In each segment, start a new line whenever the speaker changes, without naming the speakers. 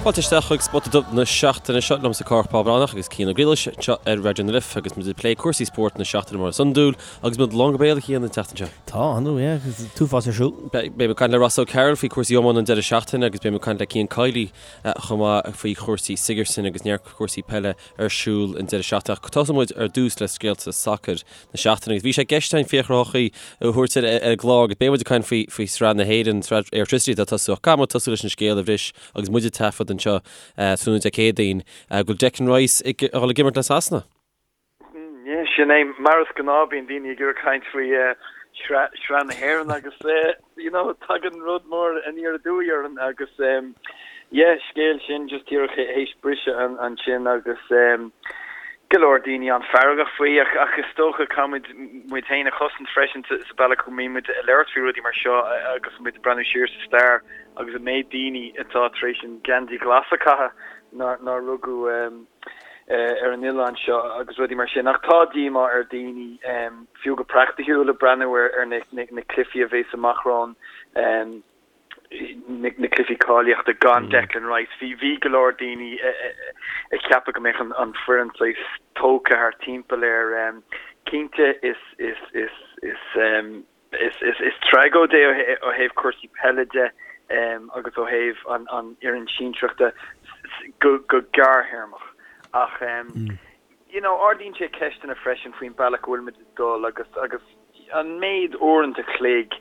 Fáilte isteach chuig Spota Dubh na seachtaine seo liomsa Cárthach Bán Breathnach agus Cian Ó Griallais anseo ar Raidió na Life agus muid ag plé cúrsaí spóirt na seachtaine mar is iondúil agus muid lán go béal a Chian an tseachtain seo.
Tá, ar ndóigh, yeah, agus an t-uafás ar siúl.
Beidh mé ag caint le Ross O'Carroll faoi chúrsaí iomána an deireadh seachtaine agus beidh mé ag caint le Cian Kiely chomh maith faoi chúrsaí Sigerson agus neart cúrsaí peile ar siúl an deireadh seachtaine. Ach tosóidh muid ar dtús le scéalta sacair na seachtaine agus bhí sé i gceist againn Fiachra Ó hEochaidh a thabhairt ar an gclár agus beidh muid ag caint faoi faoi Sraith na hÉireann, Sraith Airtricity atá ag tosú ach caithfidh muid tosú leis an scéal a bhris agus muid ag taifead anseo tráthnóna Dé Céadaoin go bhfuil Declan Rice ag dul ag imirt le Sasana.
Yeah, sin é. Mar is gnáth bíonn daoine ag iarraidh caint faoi Shraith na hÉireann agus you know tagann rud mór aniar aduaidh orainn agus yeah, scéal sin just díreach théis briseadh ansin agus go leor daoine an-fheargach faoi ach ach is dócha caithfimid muid féin a chosaint freisin sa bealach go mbíonn muid ag labhairt faoi rudaí mar seo agus muid ag breathnú siar sa stair agus an méid daoine atá tar éis an geansaí glas a chaitheamh nár nár rugadh ar an oileán seo agus rudaí mar sin. Ach tá díomá ar daoine, fiú go praiticiúil, ag breathnú ar na cluichí a bheas amach romhainn, na cluichí cáilíochta gan Declan Rice. Bhí bhí go leor daoine ag ceapadh go mbeadh an foireann saghas tógtha thart timpeall air. Cinnte is is is is Is tragóid é ó thaobh cúrsaí peile de agus ó thaobh an fhoireann sinsearach de go gearrthéarmach. Ach you know ardaíonn sé ceisteanna freisin faoin bealach go bhfuilimid ag dul agus agus an méid uaireanta an chloig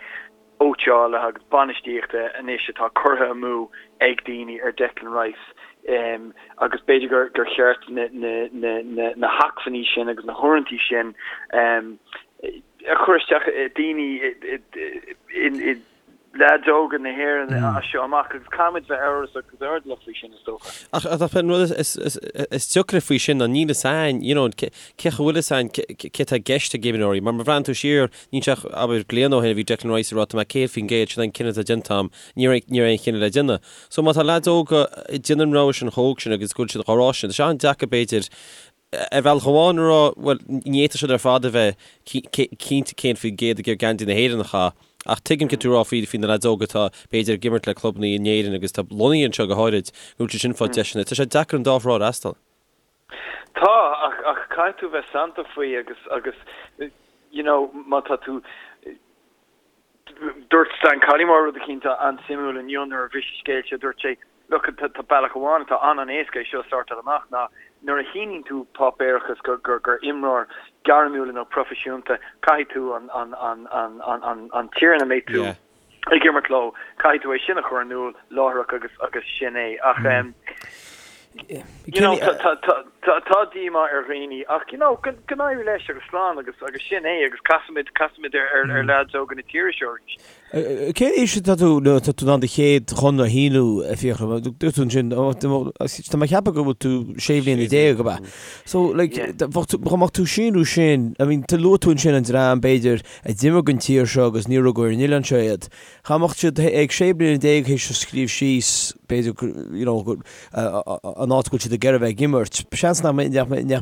cóitseála agus bainistíochta anois atá curtha amú ag daoine ar Declan Rice agus b'fhéidir gur cheart na hacmhainní sin agus na huaireanta sin a chur isteach i daoine i leaids óga na hÉireann as seo amach agus caithfimid bheith amhrasach agus airdeallach faoi sin is dócha.
Ach an rud is deacra faoi sin ná níl fhios a'inn, you know, cé go bhfuil fhios a'inn cé atá i gceist ag imreoirí. Mar má bhreathnaíonn tú siar, níl sé ach, abair, bliain ó shin a bhí Declan Rice ag rá tá mé 100%, sin an cinneadh atá déanta a'm, ní raibh aon chinneadh le déanamh. So má tá leaids óga ag déanamh an rogha sin chomh hóg sin agus go bhfuil siad á rá sin, tá sé an-deacair b'fhéidir ar bhealach amháin a rá, bhuel, ní fhéadfadh siad ar fad a bheith cinnte 100% ag iarraidh geansaí na hÉireann a chaitheamh. Ach tuigim céard tá tú a rá faoi faoi na leaids óga atá, b'fhéidir, ag imirt le clubanna in Éirinn agus atá lonnaithe anseo go háirid, go bhfuil siad sin ag fáil deiseanna. Tá sé deacair an dá thrá a fhreastal.
Tá, ach ach caithfidh tú bheith santach faoi agus agus you know má tá tú Dúirt Stan Collymore rud eicínt an-suimiúil inniu nuair a bhris an scéal seo, dúirt sé, Look, tá bealach amháin atá an-an-éasca é seo a shórtáil amach ná nuair a shíníonn tú páipéarachas gur imreoir gairmiúil nó proifisiúnta, caithfidh tú an tír ina mbeidh tú ag imirt leo, caithfidh tú é sin a chur in iúl láithreach agus agus sin é. Ach you know, tá díomá ar dhaoine ach you know, go n-éirí leis agus slán agus agus sin é agus casfaimid casfaimid ar ar leaids óga na tíre seo arís.
Cén aois atá tú nuair atá tú in ann do chéad chonradh a shíniú, a Fhiachra? Dúirt tú ansin, tá mé ag ceapadh go bhfuil tú sé bhliana déag, ab ea? So, like, dá mbeadh tú ag síniú sin, I mean, luaigh tú ansin an dream, b'fhéidir, a d'imir don tír seo agus níor rugadh ar an oileán seo iad. Dá mbeadh siad ag sé bliana déag théis a scríobh síos, b'fhéidir, you know, an áit go bhfuil siad ag iarraidh a bheith ag imirt, seans nach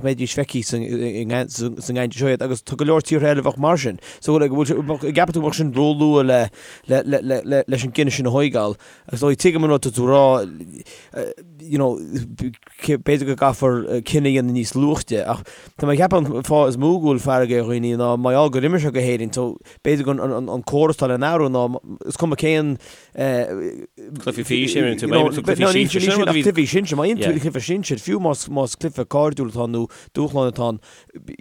mbeidís feicthe sa ngeansaí seo iad agus tá go leor tíortha eile a bheadh mar sin. So, like, bhfuil sé, an gceapann tú go mbeadh sin róluath le, le, le, le, le, leis an gcinneadh sin a thóigeáil? Agus dóigh, tuigim an rud atá tú a rá, you know, b'fhéidir go gcaithfear cinneadh a dhéanamh níos luaithe ach tá mé ag ceapadh an fáth is mó go bhfuil fearg ar dhaoine ná mar gheall gur imir sé go hÉirinn so b'fhéidir go an córas atá le n-athrú ná is cuma cén
Cluichí físe, imríonn tú, imríonn tú cluichí sinsir, sin rud a bhí.
Cluichí sinsir, má imríonn tú cluiche sinsir, fiú más más cluiche cairdiúil atá ann nó dúshlán atá ann,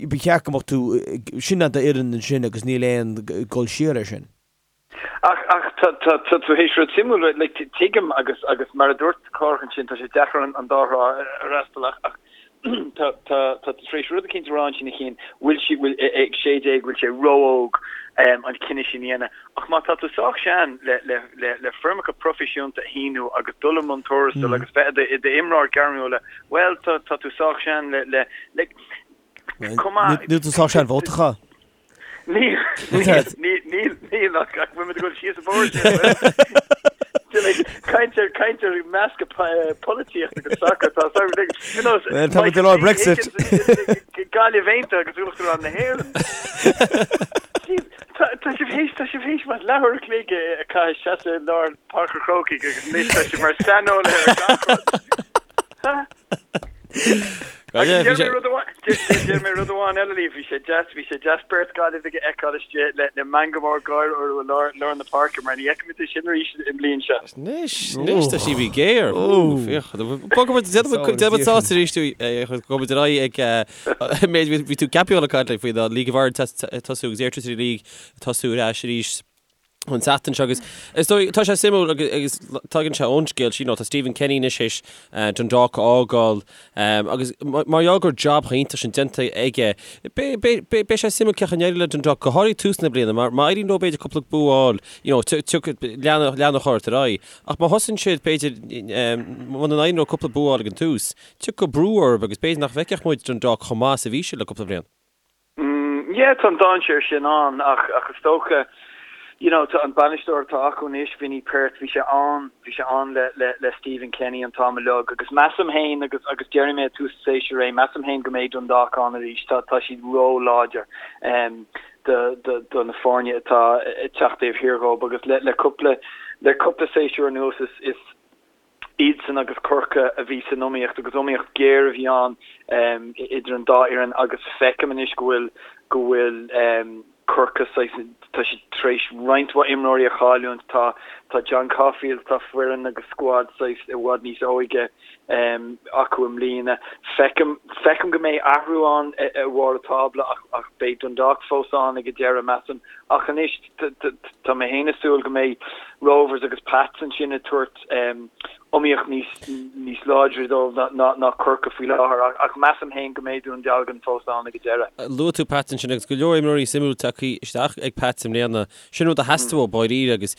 ba cheart go mbeadh tú, sin d'fhoireann ansin agus níl aon dul siar air sin.
Ach, ach tá, tá, tá tú théis rud suimiúil, like, tuigim agus, agus mar a dúirt Cárthach ansin, tá sé deacair an, an dá thrá a fhreastal ach, ach tá, tá, tá tú tar éis rud eicínt a rá ansin a Chian, bhfuil sí, bhfuil, ag 16, bhfuil sé ró-óg an cinneadh sin a dhéanamh. Ach má tá tú sách sean le, le, le, le foirmeacha proifisiúnta a shíniú agus dul i mbun tuarastail agus bheith i do, i d'imreoir gairmiúla, bhuel, tá, tá tú sách sean le, le, le,
chomh maith. Níl tú sách sean vóta a chaitheamh.
Níl, níl, níl, níl, ach ach bhfuil muid ag dul síos an bóthar sin, bhfuil? Caint ar, caint ar meascadh polaitíocht agus sacar, tá a fhios agat, you know,
Well, tá muid ag lár Brexit.
Gaillimh Aontaithe agus Uachtarán na hÉireann. Jeez, tá tá sibh théis, tá sibh théis mar leathuair a chloig a chaitheamh seasamh i lár Páirc an Chrócaigh agus anois tá sibh mar saineolaithe ar gach rud. Agus deir mé rud amháin, deir mé rud amháin eile libh, bhí sé deas, bhí sé deas beirt Gaillimhigh a fheiceáil istigh le le meangadh mór gáire orthu i lár, lár na páirce mar ní fheicimid é sin arís i mbliain seo.
Anois, anois tá sí bhí géar. Féach, bogfaidh muid, déanfaidh muid sásta arís tú, gabhfaidh muid ar aghaidh ag méid, bhí tú ceaptha le caint faoi ná League of Ireland tosú agus Airtricity League tosú ar ais arís. an tseachtain seo agus is dóigh, tá sé suimiúil agus tagann sé ón scéal sin, tá Stephen Kenny anois théis Dundalk a fhágáil agus mar gheall go raibh jab chomh iontach sin déanta aige, beidh sé suimiúil cén chaoi a n-éireoidh le Dundalk, go háirithe tús na bliana, mar má éiríonn leo b'fhéidir cúpla bua a fháil, you know, leanfaidh ort ar aghaidh. Ach má thosaíonn siad, b'fhéidir, muna n-éiríonn leo cúpla bua a fháil ag an tús, tiocfaidh brú orthu agus b'fhéidir nach bhfeicfeadh muid Dundalk chomh maith is a bhí siad le cúpla bliain.
Yeah, tá an dainséar sin ann ach ach is dócha, you know, tá an bainisteoir atá acu anois, Vinny Perth, bhí sé ann, bhí sé ann le le le Stephen Kenny an t-am uilig agus measaim féin agus agus déarfaidh mé ag tús an tséasúir é, measaim féin go mbeidh Dundalk ann arís, tá tá siad ró-láidir um do do do na foirne atá ag teacht taobh thiar dhóibh agus le le cúpla le cúpla séasúr anuas is is Iadsan agus Corcaigh a bhí san iomaíocht agus iomaíocht ghéar a bhí ann idir an dá fhoireann agus feicim anois go bhfuil go bhfuil Corcaigh saghas, tá siad tar éis roinnt mhaith imreoirí a chailliúint, tá tá John Caulfield, tá foireann agus scuad saghas i bhfad níos óige acu i mbliana. Feicim feicim go mbeidh athrú ann i bharr an tábla ach ach beidh Dundalk fós ann ag an deireadh measaim ach anois Tá mé féin ag súil go mbeidh Rovers agus Pats ansin ag tabhairt iomaíocht níos láidre dóibh ná Corcaigh faoi láthair ach measaim féin go mbeidh Dún Dealgan fós ann ag an deireadh.
Luaigh tú Pats ansin agus go leor imreoirí suimiúil tagtha isteach ag Pats i mbliana. Sin rud a theastaigh uathu dáiríre agus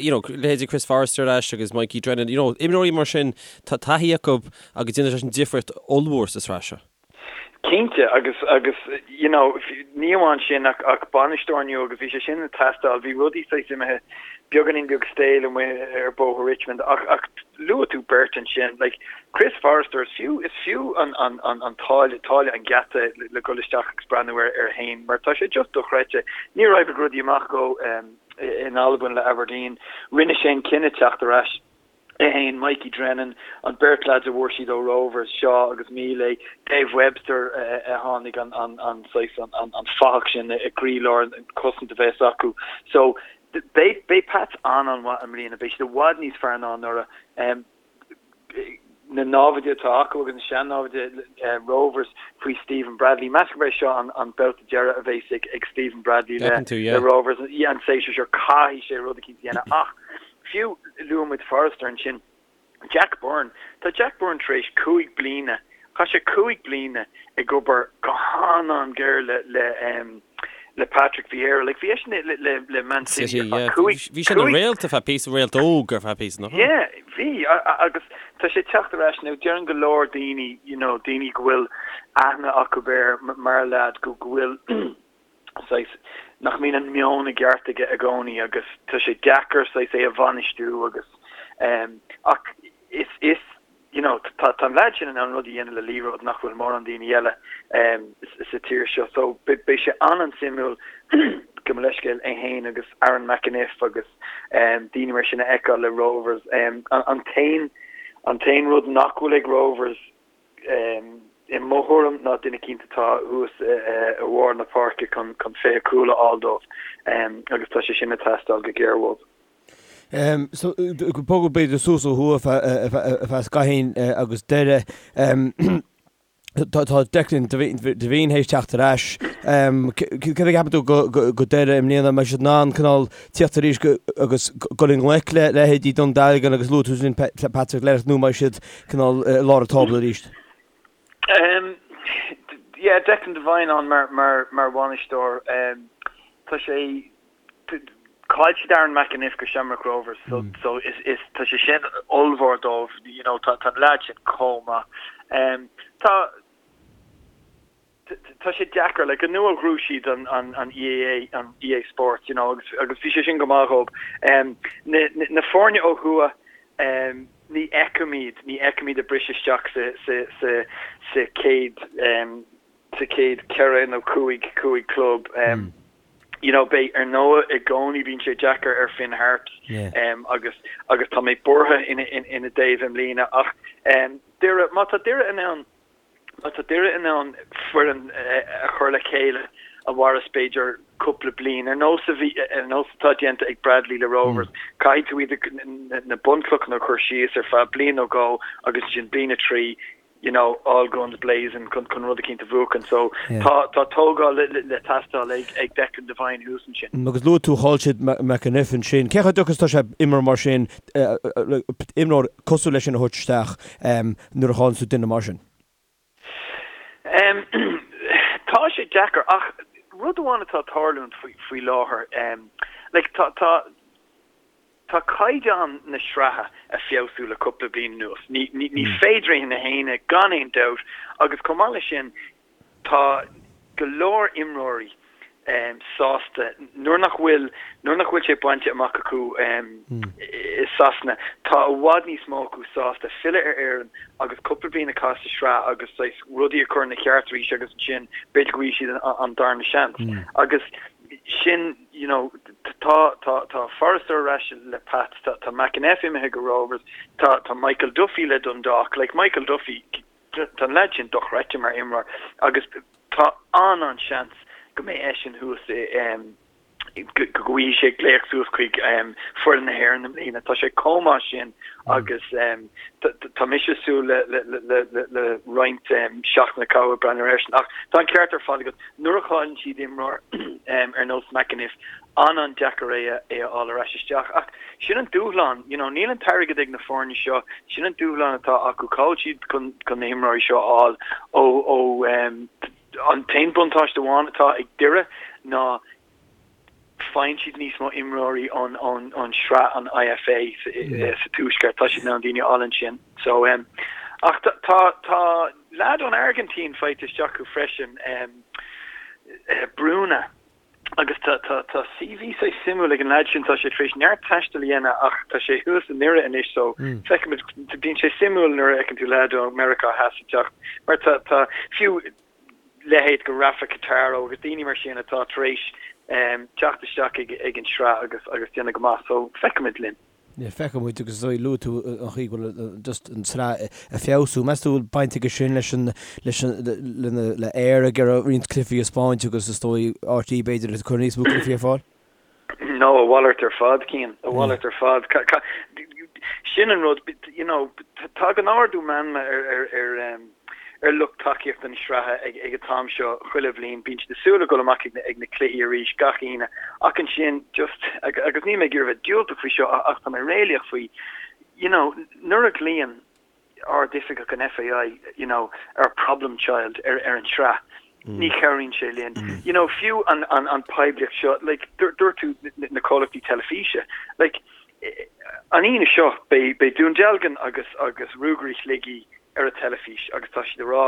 you know leithéidí Chris Forrester ar ais agus Mikey Drennan, you know imreoirí mar sin tá taithí acu agus déanann sé sin difríocht ollmhór sa sraith seo.
Cinnte, agus, agus, you know, ní amháin sin ach, ach bainisteoir nua agus bhí sé sin ag teastáil, bhí rudaí saghas imithe beagáinín beag stale amuigh ar Bhóthar Richmond ach, ach luaigh tú beirt ansin, like, Chris Forrester, is fiú, is fiú an, an, an, an táille, táille an gheata le, le dhul isteach agus breathnú air, air fhéin mar tá sé just dochreidte. Níor oibrigh rudaí amach dhó in Albain le Aberdeen, rinne sé an cinneadh teacht ar ais. É fhéin, Mikey Drennan, an beirt leaids a bhfuair siad ó Rovers, Shaw agus Mile, Dave Webster a tháinig an saghas an fathach sin i gcroílár an cosaint a bheas acu. So beidh beidh Pats an-an-mhaith i mbliana, beidh siad i bhfad níos fearr ná anuraidh. Na námhaid atá acu agus na sean-námhaid Rovers faoi Stephen Bradley, meas gurb é seo an babhta deireadh a bheas ag Stephen Bradley le Rovers an séasúr seo, caithfidh sé rud eicínt a dhéanamh ach Fiú, luaigh muid Forrester ansin. Jack Byrne, tá Jack Byrne tar éis 5 bliana, chaith sé 5 bliana ag obair go han-an-ghéar le le le Patrick Vieira. Like, bhí eisean le le le Man City ar feadh 5,
Bhí sé ina réalt ar feadh píosa, réalt óg ar feadh píosa, nach raibh?
Yeah, bhí, agus tá sé ag teacht ar ais now. Deireann go leor daoine, you know, daoine go bhfuil aithne acu air mar leaid, go go bhfuil saghas, nach mbíonn an meon i gceart aige i gcónaí agus tá sé deacair saghas é a bhainistiú agus ehm ach is is you know tá tá an leaid sin in ann rud a dhéanamh le liathróid nach bhfuil mórán daoine eile ehm sa tír seo so beidh sé an-an-suimiúil gabh mo leithscéal é fhéin agus Aaron McEneff agus ehm daoine mar sin a fheiceáil le Rovers ehm an t-aon an t-aon rud nach bhfuil ag Rovers I mo thuairim ná duine eicínt atá thuas i bharr na páirce chun 20 cúl a fháil dóibh agus tá sé sin ag teastáil go géar uathu.
So, bogadh b'fhéidir suas ó thuaidh ar feadh scaithín agus Doire. Tá Declan Devine théis teacht ar ais. Céard a cheapann tú go Doire i mbliana? An mbeidh siad in ann cineál tíocht arís agus dul i ngleic le leithéidí Dún Dealgan agus luaigh tú ansin Patrick Lerrick nó an mbeidh siad cineál i lár an tábla arís?
Yeah, Declan Devine ann mar mar mar bhainisteoir. Tá sé chaill siad Aaron McEneff go Shamrock Rovers so so is is tá sé sin ollmhór dóibh, you know, tá tá an leaid sin chomh maith. Tá Tá sé deacair, like, anuraidh ghnóthaigh siad an, an, an EA, an EA Sports, you know, agus, agus bhí sé sin go maith dhóibh. Um, na, na, na foirne ó thuaidh, um, ní fheicim iad, ní fheicim iad ag briseadh isteach sa, sa, sa, sa chéad, um, sa chéad cheithre nó chúig, chúig club. Um, you know, beidh, ar ndóigh, i gcónaí bíonn sé deacair ar Finn Harps, um, agus, agus tá mé buartha ina, ina, ina dtaobh i mbliana, ach, um, Doire, má tá Doire in ann. Má tá Doire in ann foireann a chur le chéile a mhairfeas b'fhéidir cúpla bliain, ar nós a bhí, ar nós atá déanta ag Bradley le Rovers, caithfidh tú iad na bunchlocha a chur síos ar feadh bliain nó dhó agus ansin bliain a 3, you know, all guns blazing chun chun rud eicínt a bhuachan. So tá tá tógáil le le teastáil ag ag Declan Devine thuas ansin.
Agus luaigh tú chaill siad McEneff ansin. Cé chomh deacair is atá sé imreoir mar sin, imreoir cosúil leis sin a thabhairt isteach nuair a chailleann tú duine mar sin?
Tá sé deacair ach rud amháin atá ag tarlúint faoi faoi láthair, like tá tá Tá caighdeán na sraithe ag feabhsú le cúpla bliain anuas. Ní féidir é sin a shéanadh gan aon dabht agus chomh maith leis sin tá go leor imreoirí sásta nuair nach bhfuil nuair nach bhfuil sé bainte amach acu i Sasana tá i bhfad níos mó acu sásta filleadh ar Éirinn agus cúpla bliain a chaitheamh sa sraith agus saghas rudaí a chur ina cheart arís agus ansin b'fhéidir go bhfaighidh siad an darna seans agus sin you know, tá, tá, tá Forrester ar ais le Pats, tá, tá McEneff imithe go Rovers, tá, tá Michael Duffy le Dundalk, like Michael Duffy, tá an leaid sin dochreidte mar imreoir agus tá an-an-seans go mbeidh eisean thuas i, em, go, go bhfaighidh sé glaoch suas chuig, em, foireann na hÉireann i mbliana. Tá sé chomh maith sin agus, em, tá, tá mise ag súil le, le, le, le, le roinnt, em, seachtaine a chaitheamh ag breathnú airsean ach tá an ceart ar fad agat. Nuair a chailleann siad imreoir ar nós McEneff, an-an-deacair é a fháil ar ais isteach. Ach sin an dúshlán, you know, níl an t-airgead ag na foirne seo, sin an dúshlán atá acu, cá bhfuil siad chun chun na himreoirí seo a fháil ó ó an t-aon buntáiste amháin atá ag Doire ná faigheann siad níos mó imreoirí ón ón ón sraith an IFA sa tuaisceart, tá siad in ann daoine a fháil ansin. So um, ach tá tá tá leaid ón Airgintín faighte isteach acu freisin, um, Bruna, agus tá tá tá CV saghas suimiúil ag an leaid sin, tá sé tar éis neart taistil a dhéanamh ach tá sé thuas i nDoire anois so feicfimid, bíonn sé suimiúil nuair a fheiceann tú leaid ó Meiriceá Theas ag teacht mar tá tá fiú leithéid de Rafa Cartaro agus daoine mar sin atá tar éis teacht isteach ag an sraith agus agus déanamh go maith so feicfimid linn.
Yeah, feicfimid agus is dóigh luaigh tú an chaoi go bhfuil just an tsraith ag feabhsú. Meas tú bhfuil baint aige sin leis an leis an le le Eir ag iarraidh roinnt cluichí a spáint agus is dóigh RTÉ b'fhéidir ag cur níos mó cluichí ar fáil?
No, a mhalairt ar fad, Cian, a mhalairt ar fad. Sin an rud, you know, tagann ardú meanma ar ar ar ar lucht tacaíochta na sraithe ag ag an t-am seo chuile bhliain. Bíonn siad ag súil le dul amach ag na ag na cluichí arís gach Aoine. Ach ansin, just, agus níl mé ag iarraidh bheith diúltach faoi seo ach tá mé réalaíoch faoi, you know, nuair a ghlaonn Ard-Oifigeach an FAI, you know, ar problem child ar ar an tsraith, ní chabhraíonn sé linn. You know, fiú an an an poiblíocht seo, like, dúirt tú na comhlachtaí teilifíse, like, an Aoine seo beidh beidh Dún Dealgan agus agus Ruagairí Shligigh ar an teilifís agus tá siad ag rá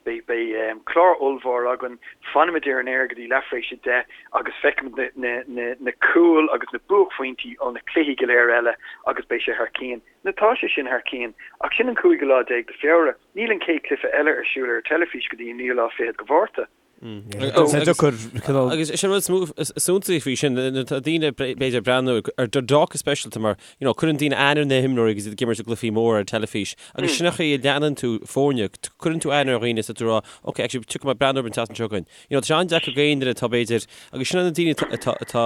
beidh beidh clár ollmhór againn, fanfaimid ar an aer go dtí leathuair tar éis a 10 agus feicfimid na na na cúil agus na buaicphointí ó na cluichí go léir eile agus beidh sé thar cionn. Now tá sé sin thar cionn, ach sin an cúigiú lá déag de Feabhra. Níl an chéad cluiche eile ar siúl ar an teilifís go dtí an naoú lá fichead de Mhárta.
Agus is é an rud is suntasaí faoi sin, tá daoine b'fhéidir ag breathnú ar Dundalk go speisialta mar, you know, cuireann daoine aithne ar na himreoirí agus iad ag imirt i gcluichí móra ar an teilifís agus sin an chaoi a leanann tú foirne, cuireann tú aithne ar dhaoine is tá tú ag rá, ok, actually tiocfaidh mé breathnú orthu an tseachtain seo chugainn. You know, tá sé an-deacair do dhaoine atá b'fhéidir, agus sin na daoine atá, atá,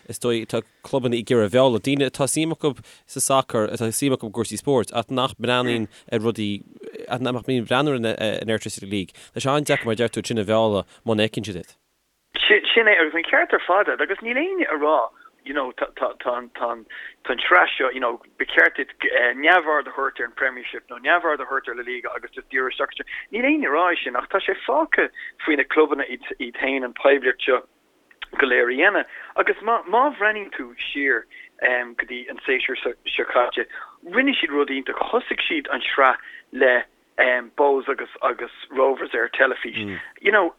is dóigh, atá clubanna ag iarraidh a mhealladh, daoine atá suim acu sa sacar, atá suim acu i gcúrsaí spóirt, ach nach mbreathnaíonn ar rudaí, ach nach mbíonn ag breathnú ar an Airtricity League. Tá sé an-deacair, mar a deir tú, sin a mhealladh muna bhfeiceann siad iad.
Sin é, agus an ceart ar fad agat, agus níl éinne ag rá, you know, tá, tá, tá an, tá an, tá an tsraith seo, you know, ba cheart duit neamhaird a thabhairt ar an Premiership nó neamhaird a thabhairt ar La Liga agus just díriú isteach anseo. Níl éinne ag rá é sin, ach tá sé fágtha faoi na clubanna iad, iad féin an poiblíocht seo go léir a dhéanamh. Agus má, má bhreathnaíonn tú siar go dtí an séasúr seo caite, rinne siad rud iontach. Thosaigh siad an tsraith le Bohs agus, agus Rovers ar teilifís. You know,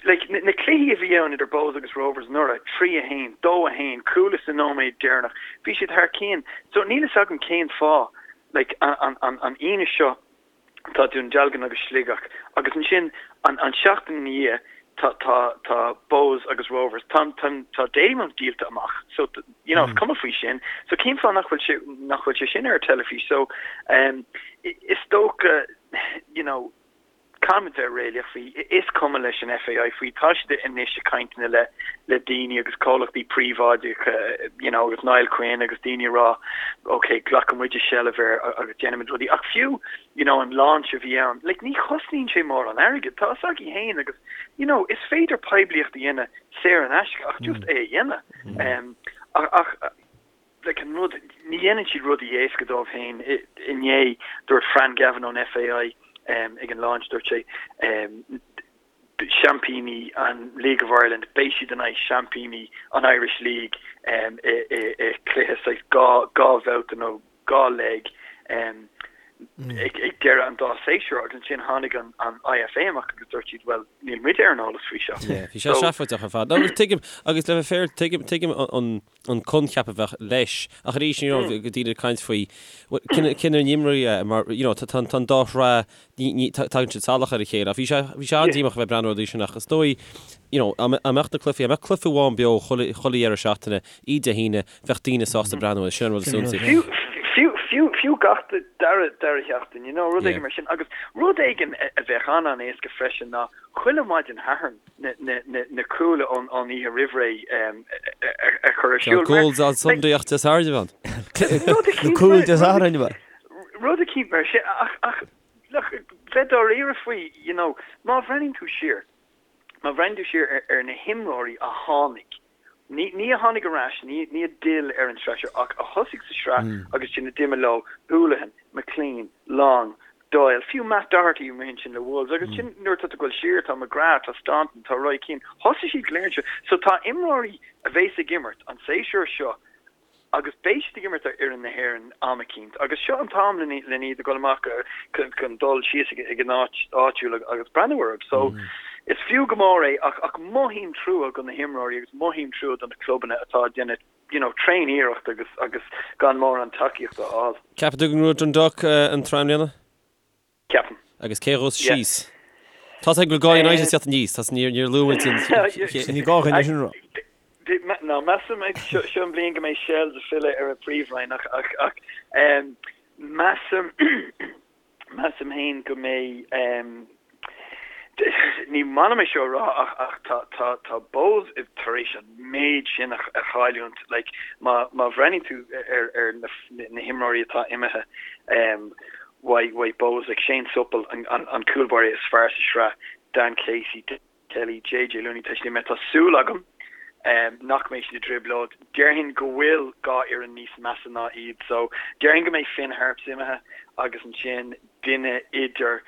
like, na, na cluichí a bhí ann idir Bohs agus Rovers anuraidh, 3 1, 2 1, cúl sa nóiméad deireanach, bhí siad thar cionn. So níl fhios agam cén fáth, like, an, an, an, an Aoine seo, tá Dún Dealgan agus Sligeach agus ansin an an seachtain ina dhiaidh tá tá tá Bohs agus Rovers. Tá tá tá Dalymount díolta amach so you know is cuma faoi sin. So cén fáth nach bhfuil sé nach bhfuil sé sin ar an teilifís? So um is dócha you know. Caithfimid bheith réalaíoch faoi, is cuma leis an FAI faoi, tá siad anois ag caint le le daoine agus comhlachtaí príobháideacha you know agus Niall Quinn agus daoine ag rá ok glacfaidh muide seilbh air agus déanfaimid rudaí ach fiú you know an launch a bhí ann like ní chosnaíonn sé mórán airgid, tá a fhios agaibh féin agus you know is féidir poiblíocht a dhéanamh saor in aisce ach just é a dhéanamh ach ach like an rud, ní dhéanann siad rudaí éasca dóibh féin. Inné, dúirt Fran Gavin ón FAI ag an launch, dúirt sé, seaimpíní an League of Ireland, beidh siad in aghaidh seaimpíní an Irish League i cluiche saghas dhá bhabhta nó dhá leg ag deireadh an dá séasúr agus ansin tháinig an IFA amach agus dúirt siad, bhuel, níl muide ar an eolas faoi seo.
Yeah, bhí sé seafóideach ar fad. No, tuigim, agus le bheith fair, tuigim, tuigim an an coincheap a bheadh leis. Ach arís, you know, go daoine ag caint faoi cén ar n-imreoirí é mar, you know, tá an dá shraith, tagann siad salach ar a chéile. Ach bhí sé, bhí sé an-díomách a bheith ag breathnú ar sin ach is dóigh, you know, dá mbeadh na cluichí, dá mbeadh cluiche amháin beo chuile dheireadh seachtaine, i Dé hAoine, bheadh daoine sásta breathnú air, sin an rud is suntasaí.
Fiú, fiú, fiú, fiú gach dara, dara sheachtain, you know, rud éigin mar sin. Agus rud éigin a bheadh an-an-éasca freisin ná chuile mhaidin Shathairn, na cúil ón oíche roimh ré a chur ar siúl.
Tá Goals on Sunday ach Dé Sathairn
ann. Na cúil Dé Sathairn ann.
Rud eicínt mar sin ach look, bheith dáiríre faoi, you know, má bhreathnaíonn tú siar, má bhreathnaíonn tú siar ar na himreoirí a tháinig Ní ní a tháinig ar ais, ní ní a d'fhill ar an tsraith seo, ach a thosaigh sa sraith agus ansin a d'imigh leo, Hoolahan, McClean, Long, Doyle, fiú Matt Doherty amuigh ansin le Wolves, agus ansin nuair atá tú ag dul siar, tá McGrath, tá Staunton, tá Roy Keane, thosaigh siad go léir anseo. So tá imreoirí a bheas ag imirt an séasúr seo agus beidh siad ag imirt ar fhoireann na hÉireann am eicínt agus seo an t-am len iad a dhul amach chun dul síos ag an áit áitiúil agus breathnú orthu. So is fiú go mór é ach ach mothaím trua do na himreoirí agus mothaím trua do na clubanna atá ag déanamh you know tréan-iarracht agus agus gan mórán tacaíochta a fháil.
Ceapann tú go ngnóthóidh Dundalk an tsraith i mbliana?
Ceapaim.
Agus cé a ghabhfas síos? Tá a fhios go bhfuil dhá United ag teacht aníos, tá níor níor luaigh muid an
Ní gá dhuine sin a rá.
Ná measaim seo seo an bhliain go mbeidh Shels ag filleadh ar an Phríomhroinn ach ach ach measaim measaim féin go mbeidh ní maith liom é seo a rá ach ach tá tá tá Bohs tar éis an méid sin a chailliúint like má má bhreathnaíonn tú ar ar na na himreoirí atá imithe uaidh uaidh Bohs like Shane Supple an an an cúl báire is fearr sa sraith Dan Casey Kelly JJ Looney tá siad imithe tá súil agam nach mbeidh siad i dtrioblóid déarfainn go bhfuil dhá fhoireann níos measa ná iad so déarfainn go mbeidh Finn Harps imithe agus ansin duine idir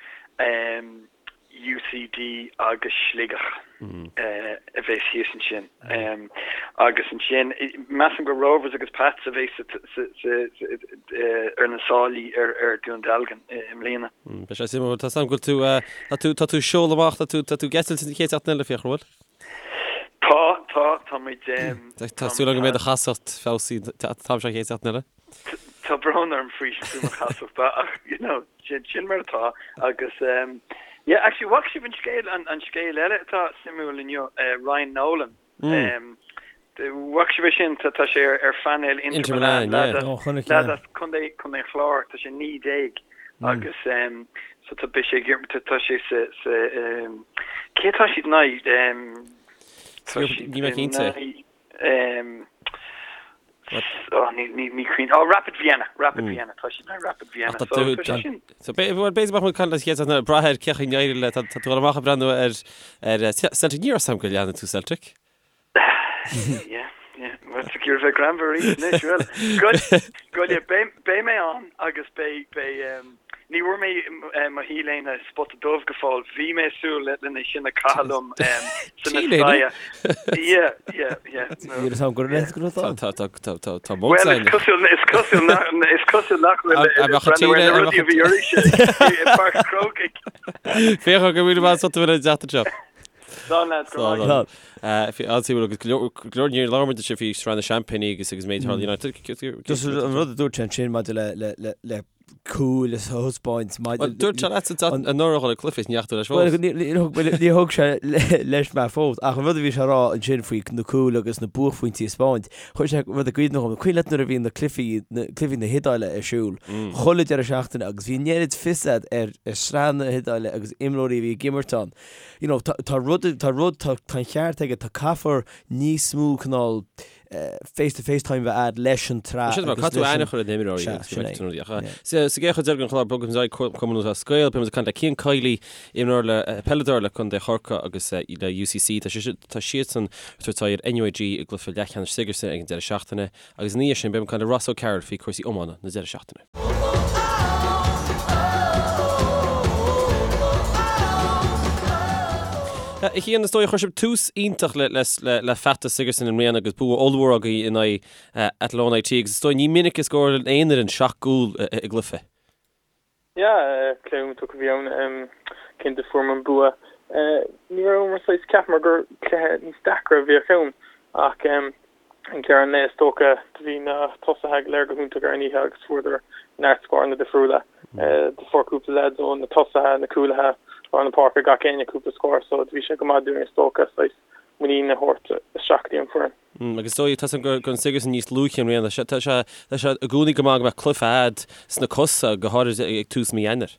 UCD agus Sligeach a bheas thíos ansin. Agus ansin, measaim gur Rovers agus Pats a bheas ar na sálaí ar Dún Dealgan i mbliana.
Beidh sé suimiúil. Tá a fhios agam go bhfuil tú, tá tú, tá tú ag seoladh amach, tá tú, tá tú ag eitilt an chéad seachtain eile, Fiachra, an bhfuil?
Tá, tá, tá muid.
Tá súil agam go mbeidh do chasacht feabhsaithe an t-am seo an chéad seachtain eile.
Tá brón orm faoi faoi mo chasacht ach you know sin sin mar atá agus um, yeah actually bhfaca sibh an scéal an, an scéal eile atá suimiúil inniu uh, Ryan Nolan mm. um, bhfaca sibh é sin tá tá sé ar, ar phainéal Inter, Inter Milan,
Milan yeah. Oh, chonaic, yeah.
lad as Contae Contae an Chláir tá sé 19 mm. agus um, so tá beidh sé tá tá sé sa sa um, cé tá siad in aghaidh um,
tá siad Ní mé cinnte.
Um, oh, ní, ní, ní cuimhin. Oh, Rapid Vienna, Rapid mm. Vienna, tá siad Rapid Vienna.
So, tá sé sin. So, bhuel, b'fhéidir go mbeidh muid ag caint leat an chéad seachtain eile, brath ar cén chaoi a n-éireoidh leat, tá tú ag dul amach ag breathnú ar, ar eh, Celtic, ní raibh a fhios agam go leanann tú Celtic.
Yeah, yeah. Well, tá cúrsaí bheith greannmhar arís anois, well. Good, good, yeah, beidh, beidh mé ann agus beidh, beidh, um, Ní bhfuair mé mo T-léine spota dubh go fóill. Bhí mé ag súil lena sin a chaitheamh liom sa Mestalla. Yeah, yeah, yeah.
Níl a fhios agam go raibh go raibh
ann. Tá tá tá tá tá
Well, is cosúil is cosúil nach is cosúil nach bhfuil breathnú ar na rudaí a bhí oraibhse i bPáirc an Chrócaigh.
Féach go bhfuil mé sult a bheith an tseachtain seo.
Slán lads, go raibh maith
agat. An-suimiúil agus go leor go leor níor labhair muid anseo faoi sraith na seaimpíní agus agus méid United.
Just an rud a dúirt sé ansin maidir le le le le. cúil a thaispeáint
maidir Bhuel, dúirt sé leatsa anuraidh dhul ag cluiche is ní dheachaigh tú leis fós.
Bhuel, níor thug sé leis mé fós, ach an rud a bhí sé a rá ansin faoi na cúil agus na buaicphointí a thaispeáint, chuir sé rud i gcuimhne dhom, cuimhin leat nuair a bhí na cluichí, na cluichí na hIodáile ar siúl, chuile deireadh seachtaine agus bhí an oiread fios a'd ar sraith na hIodáile agus imreoirí a bhí ag imirt ann. You know, tá, tá rud, tá rud, tá, tá an ceart aige, tá caithfear níos mó cineál, face to face time a bheith a'd leis an tsraith
Sin mar
agus
caithfidh tú
leis
aithne
an
a chur ar na himreoirí
Sea,
agus go
sin
mbeidh
é.
tú ach
Yeah.
sa sa gcéad chuid eile den chlár bogfaidh muid ar aghaidh Cumann Lúthchleas Gael beidh muid ag caint le Cian Kiely imreoir le peileadóir le Contae Chorcaí agus le UCC tá sé tá siadsan ag tabhairt aghaidh ar NUIG i gcluiche leathcheannais Sigerson ag an deireadh seachtaine agus ina dhiaidh sin beidh muid ag caint le Ross O'Carroll faoi chúrsaí iomána na deireadh seachtaine. A Chian, is dóigh chuir sibh tús iontach le feachtas Sigerson i mbliana agus bua ollmhór agaibh in aghaidh Athlone IT agus is dóigh ní minic a scórálann aon fhoireann 7 gcúl i gcluiche.
Yeah, cluiche iontach a bhí ann. Cinnte fuaireamar an bua. Ní rabhamar saghas, cheapamar gur cluiche níos deacra a bheadh ann ach ag deireadh an lae is dócha do bhí na tosaithe go léir go hiontach ar an oíche agus fuaireadar neart scóranna difriúla. Do fuair cúpla leaids ó na tosaithe, na cúlaithe, lár na páirce, gach éinne cúpla scór so do bhí sé go maith dúinn is dócha saghas muinín a thabhairt isteach go dtí an foireann.
Agus is dóigh, tá a fhios agam go raibh an Sigerson níos luaithe i mbliana. Tá sé tá sé i gcónaí go maith go mbeadh cluiche a'd sna cosa, go háirid ag tús mí Eanáir.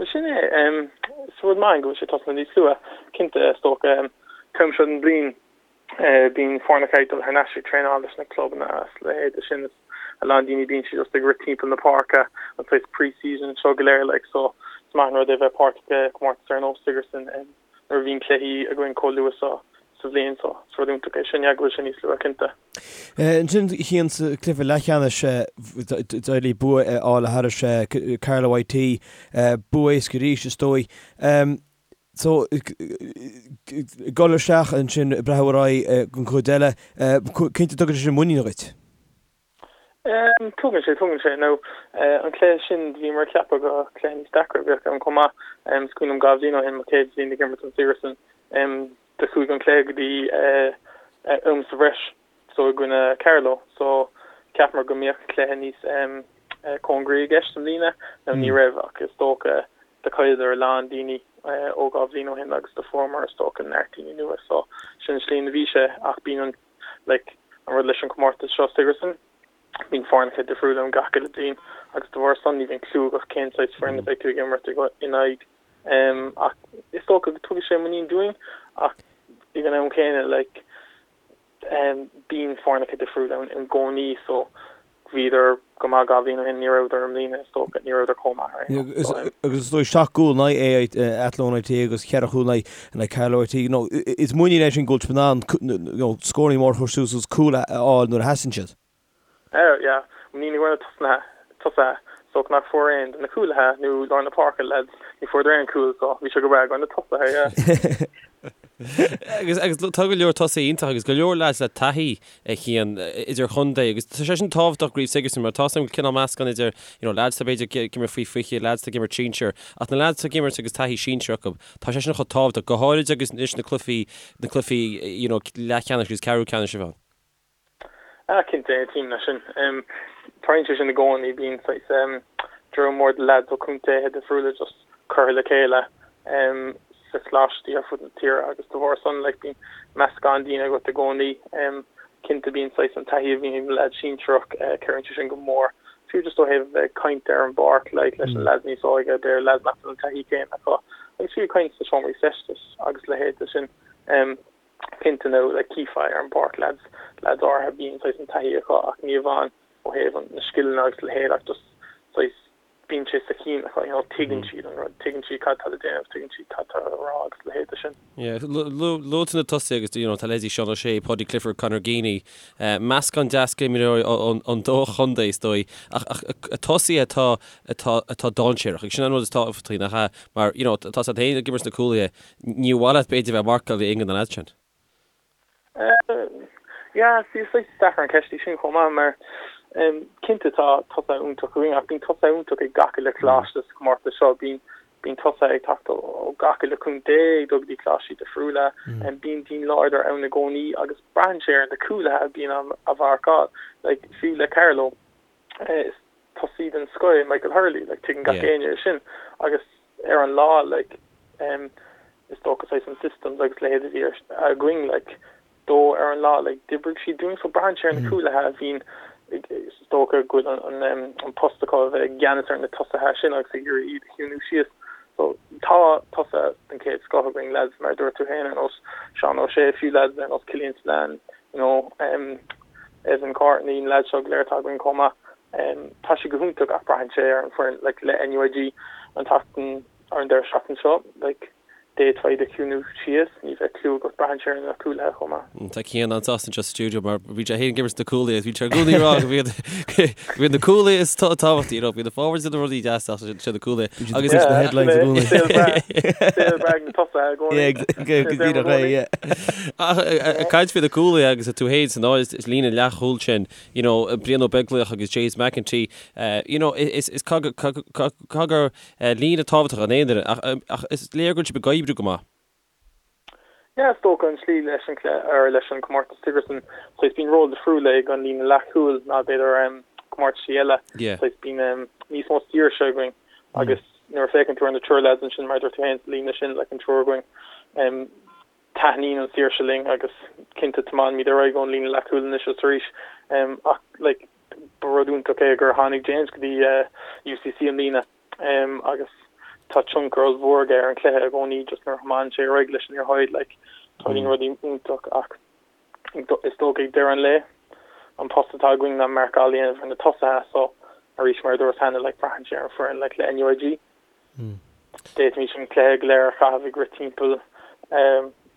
Bhuel sin é. Is rud maith go bhfuil sé tosnaithe níos luaithe, cinnte. Is dócha an t-am seo den bhliain bíonn foirne ag dul thar n-ais ag traenáil leis na clubanna is a leithéid de sin. Is a lán daoine bíonn siad just ag rith timpeall na páirce an saghas pre-season seo go léir like so is maith an rud é bheith páirteach i gcomórtas ar nós Sigerson. Nuair a bhíonn cluichí againn chomh luath so sa bhliain so is rud iontach é sin yeah go bhfuil sé níos luaithe
cinnte. Ansin a Chian sa cluiche leathcheannais d'éirigh bua a fháil thairis Carlow IT, bua éasca arís is dóigh. So dul isteach ansin ag breathnú ar aghaidh don chuid eile, cinnte tugann sé sin muinín dhuit.
Tugann sé, tugann sé. Now an cluiche sin bhíomar ag ceapadh gur cluiche níos deacra a bheadh ann chomh maith. Is cuimhin liom 2 bhliain ó shin, mo chéad bhliain ag imirt don Sigerson, Do chuaigh an cluiche go dtí am sa bhreis so i gcoinne Carlow so cheapamar go mbeadh cluiche níos cóngaraí i gceist i mbliana. Now ní raibh ach is dócha do chailleadar a lán daoine ó 2 bhliain ó shin agus do fuaireamar is dócha neart daoine nua so sin an slí ina bhí sé ach bíonn an like an rud leis an comórtas seo Sigerson bíonn foirneacha difriúla ann gach uile bliain agus de bharr san ní bhíonn clue agat cén saghas foireann a bheidh tú ag imirt in aghaidh. Ach is dócha go dtugann sé muinín dúinn ach ag an am céanna like bíonn foirneacha difriúla ann i gcónaí so bhíodar go maith 2 bhliain ó shin, ní rabhadar i mbliana is dócha, ní rabhadar chomh maith ar aon
nós. So. Agus is dóigh 7 gcúl in aghaidh Athlone IT agus 4 chúl in aghaidh Carlow IT, you know, is muinín é sin go bhfuil sibh in ann you know, scóranna móra a chur suas agus cúil a fháil nuair a theastaíonn siad.
Oh yeah, muinín i gcomhair na tosaithe, so nach fuair aon de na cúlaithe nó lár na páirce lads, ní fuaireadar aon cúl so bhí sé go breá i gcomhair na tosaithe,
yeah. Agus agus tá go leor tosaithe iontach agus go leor lads le taithí a Chian idir chontae agus tá sé sin tábhachtach i gCraobh Sigerson mar tá a fhios agam cineál meascán idir you know lads atá b'fhéidir ag imirt faoi 20, lads atá ag imirt sinsir ach na lads atá ag imirt agus taithí sinsir acu tá sé sin chomh tábhachtach go háirid agus anois na cluichí na cluichí you know leathcheannais agus ceathrú ceannais a bheith ann.
Ah, cinnte, aontaím leis sin. Tarlaíonn sé sin i gcónaí, bíonn saghas dream mór de leaids ó contaetha difriúla just curtha le chéile sa choláistí ar fud na tíre agus de bharr san like bíonn meascán daoine agat i gcónaí. Cinnte bíonn saghas an taithí a bhíonn ag na leaids sinsearach, cabhraíonn sé sin go mór. Fiú just ó thaobh a bheith ag caint ar an bpáirc like leis na leaids níos óige, b'fhéidir leaids nach bhfuil an taithí céanna acu agus fiú ag caint sna seomraí feistis agus leithéid de sin. Cinnte nó like chífeá ar an bpáirc leaids, leaids áirithe bíonn saghas an taithí acu ach ní amháin ó thaobh an, na scileanna agus a leithéid ach just saghas bíonn sé sa chinn acu, you know, tuigeann siad an rud, tuigeann siad cad tá le déanamh, tuigeann siad cad tá le rá agus a leithéid de sin.
Yeah, luaigh tú na tosaithe agus you know, tá leithéidí Seán O'Shea, Paudie Clifford, Conor Geaney, meascán deas d'imreoirí ón dá chontae is dóigh ach, ach tosaithe atá, atá, atá dainséarach agus sin an rud is tábhachtaí nach ea mar you know, tá a fhios agat féin ag imirt sna cúlaithe Níor mhaith leat b'fhéidir bheith ag marcáil aon de na leaids
sin. Yeah, see, is saghas deacair an ceist í sin chomh maith mar cinnte tá tosaithe iontach againn ach bíonn tosaithe iontach ag gach uile choláiste sa chomórtas seo. Bíonn bíonn tosaithe ag teacht ó gach uile chontae ag dul go dtí coláistí difriúla. Bíonn daoine láidir ann i gcónaí agus braitheann sé ar na cúlaithe a bhíonn á mharcáil. Like, fiú le Carlow, is. tosaí den scoth é Michael Hurley, like tuigeann gach éinne é sin agus ar an lá like em is dócha saghas an systems agus leithéid a bhí againn like dó ar an lá like d'oibrigh siad dúinn so braitheann sé ar na cúlaithe a bhíonn is dócha go bhfuil an an an post acu a bheith i gceannas ar na tosaithe sin agus ag iarraidh iad a chiúnú síos so tá tosaithe den chéad scoth againn lads mar a dúirt tú féin ar nós Seán O'Shea fiú lads ar nós Killian Spillane you know em Evan Courtney na lads seo go léir atá againn chomh maith. Tá sé go hiontach ach braitheann sé ar an foireann like le NUIG an tseachtain ar an deireadh seachtaine seo like d'fhéadfá iad a chiúnú síos, ní bheadh clue agat, braitheann sé ar na cúlaithe chomh maith.
Tá Cian an-sásta anseo sa stiúideo mar bhí sé féin ag imirt na cúlaithe agus bhí sé i gcónaí ag rá go mbíonn go mbíonn na cúlaithe is tábhachtaí, you know, bíonn na forwards ina rudaí deasa ach sé na cúlaithe
agus is na headlines i gcónaí.
Saol breá, saol breá ag na tosaithe i gcónaí.
Yeah, go díreach é, yeah.
Ach ag caint faoi na cúlaithe agus tú féin san áit is líne leathchúil sin, you know, Brian Ó Beaglaoich agus James McEntee, you know, is is gur líne tábhachtach an aon duine, ach ach is léir go bhfuil sibh ag oibriú go maith.
Yeah, is dócha an tslí leis an cluiche, or leis an comórtas Sigerson, saghas bíonn ról difriúil ag an líne leathchúil ná b'fhéidir um, comórtaisí eile.
Yeah.
Saghas bíonn um, níos mó saoirse againn agus nuair a féachann tú ar na triúr lads ansin mar a dúirt tú féin sa líne sin like an triúr againn um, Taitníonn an saoirse linn agus cinnte tiomáinimid ar aghaidh ón líne leathchúil anois is arís ach like ba rud iontach é gur tháinig James go dtí UCC i mbliana agus tá tionchar ollmhór aige ar an chluiche i gcónaí just nuair a thiomáineann sé ar aghaidh leis an liathróid like tarlaíonn rudaí iontach ach is dócha ag deireadh an lae an post atá againn ná marcáil a dhéanamh ar na tosaithe so arís mar a dúras cheana like braitheann sé ar an foireann like le NUIG. D'fhéadfaimis an cluiche go léir a chaitheamh ag rith timpeall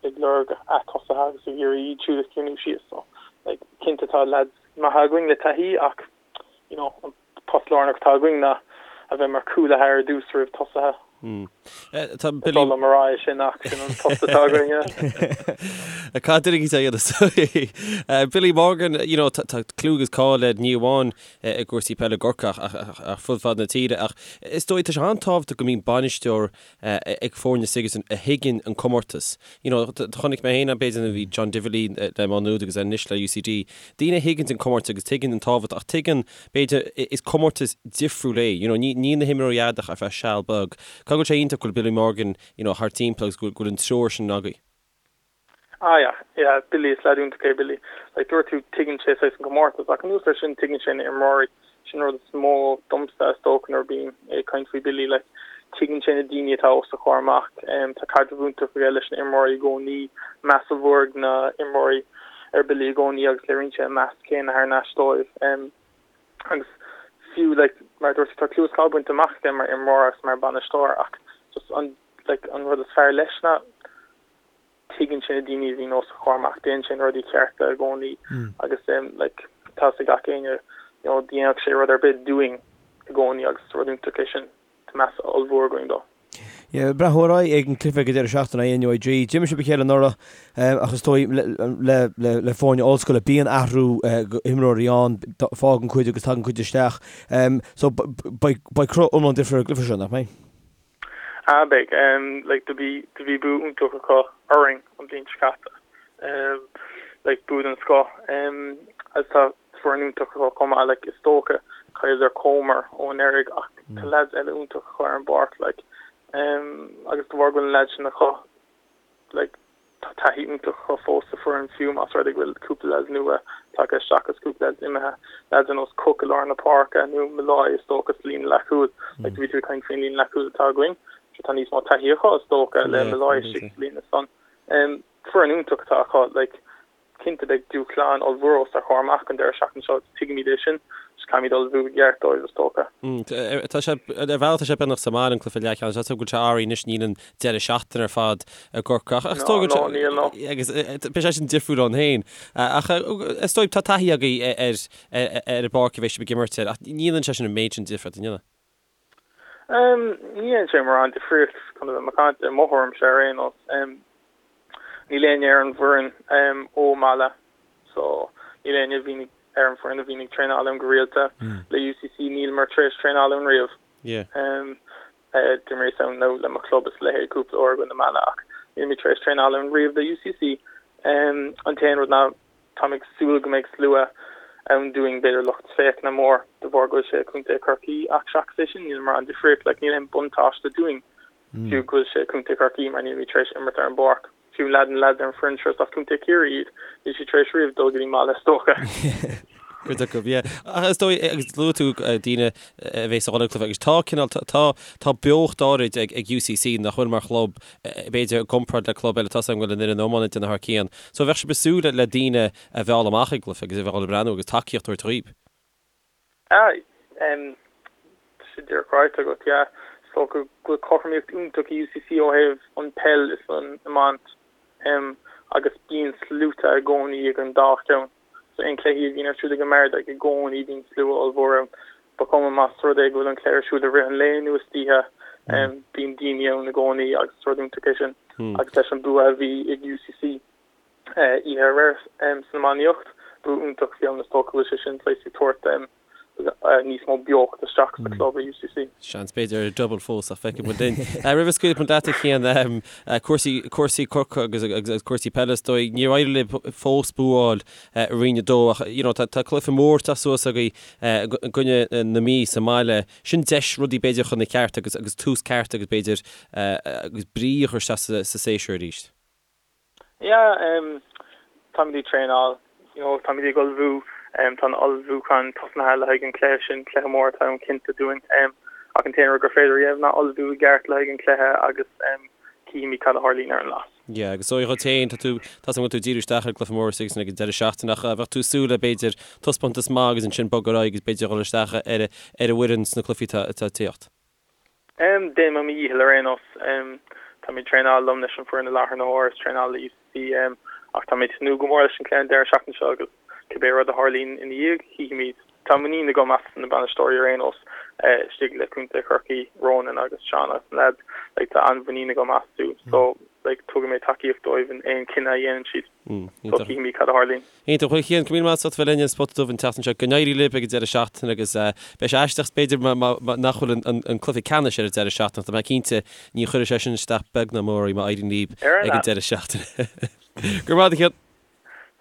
ag lorg a tosaithe agus ag iarraidh iad siúd a chiúnú síos. So, like, cinnte tá lads maithe againn le taithí ach, you know, an post lárnach atá againn ná a bheith mar chúlaithe ar dtús roimh tosaithe.
Tá
Is oth liom a rá é sin ach sin an post atá againn, yeah.
Cad duine a dhéanamh? Billy Morgan, you know, tá clú agus cáil air ní amháin i gcúrsaí peile i gCorcaigh ach ar fud fad na tíre. Ach is dóigh, tá sé an-tábhachtach go mbíonn bainisteoir ag foirne Sigerson a thuigeann an comórtas. You know, chonaic mé féin b'fhéidir nuair a bhí John Divilly le Má Nuad agus anois le UCD, daoine a thuigeann an comórtas agus tuigeann an tábhacht ach tuigeann, b'fhéidir, is comórtas difriúil é. You know, níl na himreoirí agat ach ar feadh seal beag. Caithfidh go bhfuil sé iontach go bhfuil Billy Morgan, you know, thart timpeall agus go bhfuil an treoir sin agaibh.
Ah yeah, yeah, Billy, is leaid iontach é Billy. Like dúirt tú, tuigeann sé saghas an comórtas, ach anuas air sin tuigeann sé na imreoirí. Sin rud is mó domsa is dócha nuair a bím ag caint faoi Billy, like tuigeann sé na daoine atá os a chomhair amach. Tá caidreamh iontach aige leis na imreoirí i gcónaí, meas ollmhór ag na imreoirí ar Billy i gcónaí agus léiríonn sé an meas céanna thar n-ais dóibh. Agus fiú like mar a dúirt tú, tá clú is cáil bainte amach aige mar imreoir agus mar bhainisteoir ach just an like an rud is fearr leis ná tuigeann sé na daoine a bhíonn os a chomhair amach, déanann sé na rudaí cearta i gcónaí agus like tá 'fhios ag gach éinne you know dhéanfadh sé rud ar bith dúinn i gcónaí agus is rud iontach é sin, tá meas ollmhór againn dó.
Yeah, breathnú ar aghaidh ag an cluiche ag an deireadh seachtaine in aghaidh NUIG. D'imir sibh a chéile anuraidh ach is dóigh le le le foirne ollscoile bíonn athrú imreoirí ann, fágann cuid agus tagann cuid isteach. So beidh beidh cruth iomlán difriúil ar an gcluiche seo, nach mbeidh?
Ah beidh, like do bhí do bhí bua iontach acu orainn an bhliain seo caite, like bua den scoth, agus tá foireann iontach acu chomh maith, like is dócha chailleadar Comer ó anuraidh ach tá lads eile iontach acu ar an bpáirc, like agus de bharr go bhfuil na lads sin acu, like tá taithí iontach acu fós sa foireann fiú más rud é go bhfuil cúpla lads nua tagtha isteach agus cúpla lads imithe, lads ar nós Cooke i lár na páirce nó Molloy is dócha sa líne leathchúil. Like bhí tú ag caint faoin líne leathchúil atá againn, so tá níos mó taithí acu is dócha le Molloy istigh sa líne san. Foireann iontach atá acu, like Cinnte beidh dúshlán ollmhór os ár gcomhair amach an deireadh seachtaine seo agus tuigimid é sin, just caithfimid ullmhú i gceart dóibh is dócha.
Tá sé, ar bhealach tá sé beagnach sa mbaile an cluiche leathcheannais, tá a fhios agam go bhfuil sé athraithe anois níl an deireadh seachtaine ar fad i gCorcaigh ach is dóigh
No, no, níl, no.
Agus beidh sé sin difriúil ann féin. Ach is dóigh tá taithí agaibh ar ar an bpáirc a bheidh sibh ag imirt air ach ní dhéanann sé sin an méid sin difríocht, an ndéanann?
Ní dhéanann sé mórán difríocht chun a bheith macánta, i mo thuairimse ar aon nós. Níl éinne ar an bhfoireann ó Mala so níl éinne a bhíonn ar an bhfoireann a bhíonn ag traenáil ann go rialta. Le UCC níleamar tar éis traenáil ann riamh. D'imríos ann nó le mo chlub is a leithéid cúpla uair i gcoinne Mala ach nílimid tar éis traenáil ann riamh le UCC. An t-aon rud ná Táim ag súil go mbeidh slua. ann dúinn, b'fhéidir lucht féachana mór de bharr go bhfuil sé i Contae Chorcaí ach seachas é sin níl mórán difríocht, like níl aon buntáiste dúinn fiú go bhfuil sé i Contae Chorcaí mar nílimid tar éis imirt ar an bpáirc. Fiú leaid na leaids ar an foireann seo is as Contae Chiarraí iad, níl siad tar éis riamh dul go dtí an mbaile is dócha.
Cuid acu, yeah. Ach is dóigh, agus luaigh tú daoine a bheas ag dul ag cluiche, agus tá cineál, tá, tá beocht áirid ag, ag UCC nach bhfuil mar chlub, b'fhéidir i gcomparáid le club eile, tá a fhios agam go bhfuil an fhoireann iomána ag déanamh thar cionn. So bheadh sibh ag súil le daoine a mhealladh amach ag an gcluiche agus a bheith ag dul ag breathnú agus tacaíocht a thabhairt dhaoib.
Ah, em, tá sé díreach ráite agat, yeah. Is dócha go bhfuil cothromaíocht iontach i UCC ó thaobh an peil is an iomáint, em, agus bíonn sluaite i gcónaí ag an dá cheann. So aon cluichí a bhíonn ar siúl ag an mBardaigh, i gcónaí bíonn slua ollmhór ann. Ba chuma más rud é go bhfuil an cluiche ar siúl i rith an lae nó istoíche, em, bíonn daoine ann i gcónaí agus is rud iontach é sin. Agus leis an bua a bhí ag UCC, oíche aréir san iománaíocht. Bua iontach a bhí ann, is dócha go bhfuil sé sin saghas ag tabhairt níos mó beocht isteach sa chlub i UCC.
Seans b'fhéidir ar double fós ach feicfidh muid linn. Roimh a scaoilfidh muid leat a Chian, cúrsaí, cúrsaí Corcaigh agus agus cúrsaí peile is dóigh, níor éirigh libh fós bua a fháil i Roinn 2 ach you know tá tá cluiche mór ag teacht suas agaibh i gcoinne na Mí sa mbaile. Sin deis rudaí b'fhéidir chun na ceart agus agus tús ceart agus b'fhéidir agus brí a chur isteach sa sa séasúr arís.
Yeah, em, táimid ag traenáil, you know, táimid ag ullmhú, em, tá an ullmhúchán tosnaithe le haghaidh an cluiche sin, cluiche mór atá ann cinnte dúinn, em, ach an t-aon rud gur féidir a dhéanamh ná ullmhú i gceart le haghaidh an cluiche agus, em, cífimid cad a tharlaíonn ar an lá.
Yeah, agus is dóigh dhuit féin, tá tú, tá a fhios agam go bhfuil tú ag díriú isteach ar an gcluiche mór istigh san ag an deireadh seachtaine ach bheadh tú ag súil le b'fhéidir taispeántas maith agus ansin bogadh ar aghaidh agus b'fhéidir dhul isteach ar, ar an bhfoireann sna cluichí atá, atá ag tíocht.
Déanfaidh mé mo dhícheall ar aon nós. Tá mé ag traenáil liom leis an foireann i láthair na huaire is traenáil le UCC ach tá mé ag tnúth go mór leis an cluiche an deireadh seachtaine seo agus cibé rud a tharlaíonn ina dhiaidh, chífimid. Tá muinín agam as na bainisteoirí ar aon nós istigh le Contae Chorcaí, Ronan agus Seán agus na leaids. Like tá an-mhuinín agam astu so like tabharfaidh mé tacaíocht dóibh in aon chinneadh a dhéanann siad. So cífimid cad a tharlaíonn.
Iontach. Bhuel, a Chian, go raibh míle maith agat as ucht a bheith linn ar An Spota Dubh an tseachtain seo. Go n-éirí libh ag an deireadh seachtaine agus beidh sé aisteach b'fhéidir nach bhfuil an cluiche ceannais ar an deireadh seachtaine ach tá mé cinnte ní chuirfidh sé sin isteach beag ná mór oraibh má éiríonn libh ag an deireadh seachtaine. Go raibh maith agat, a Chian.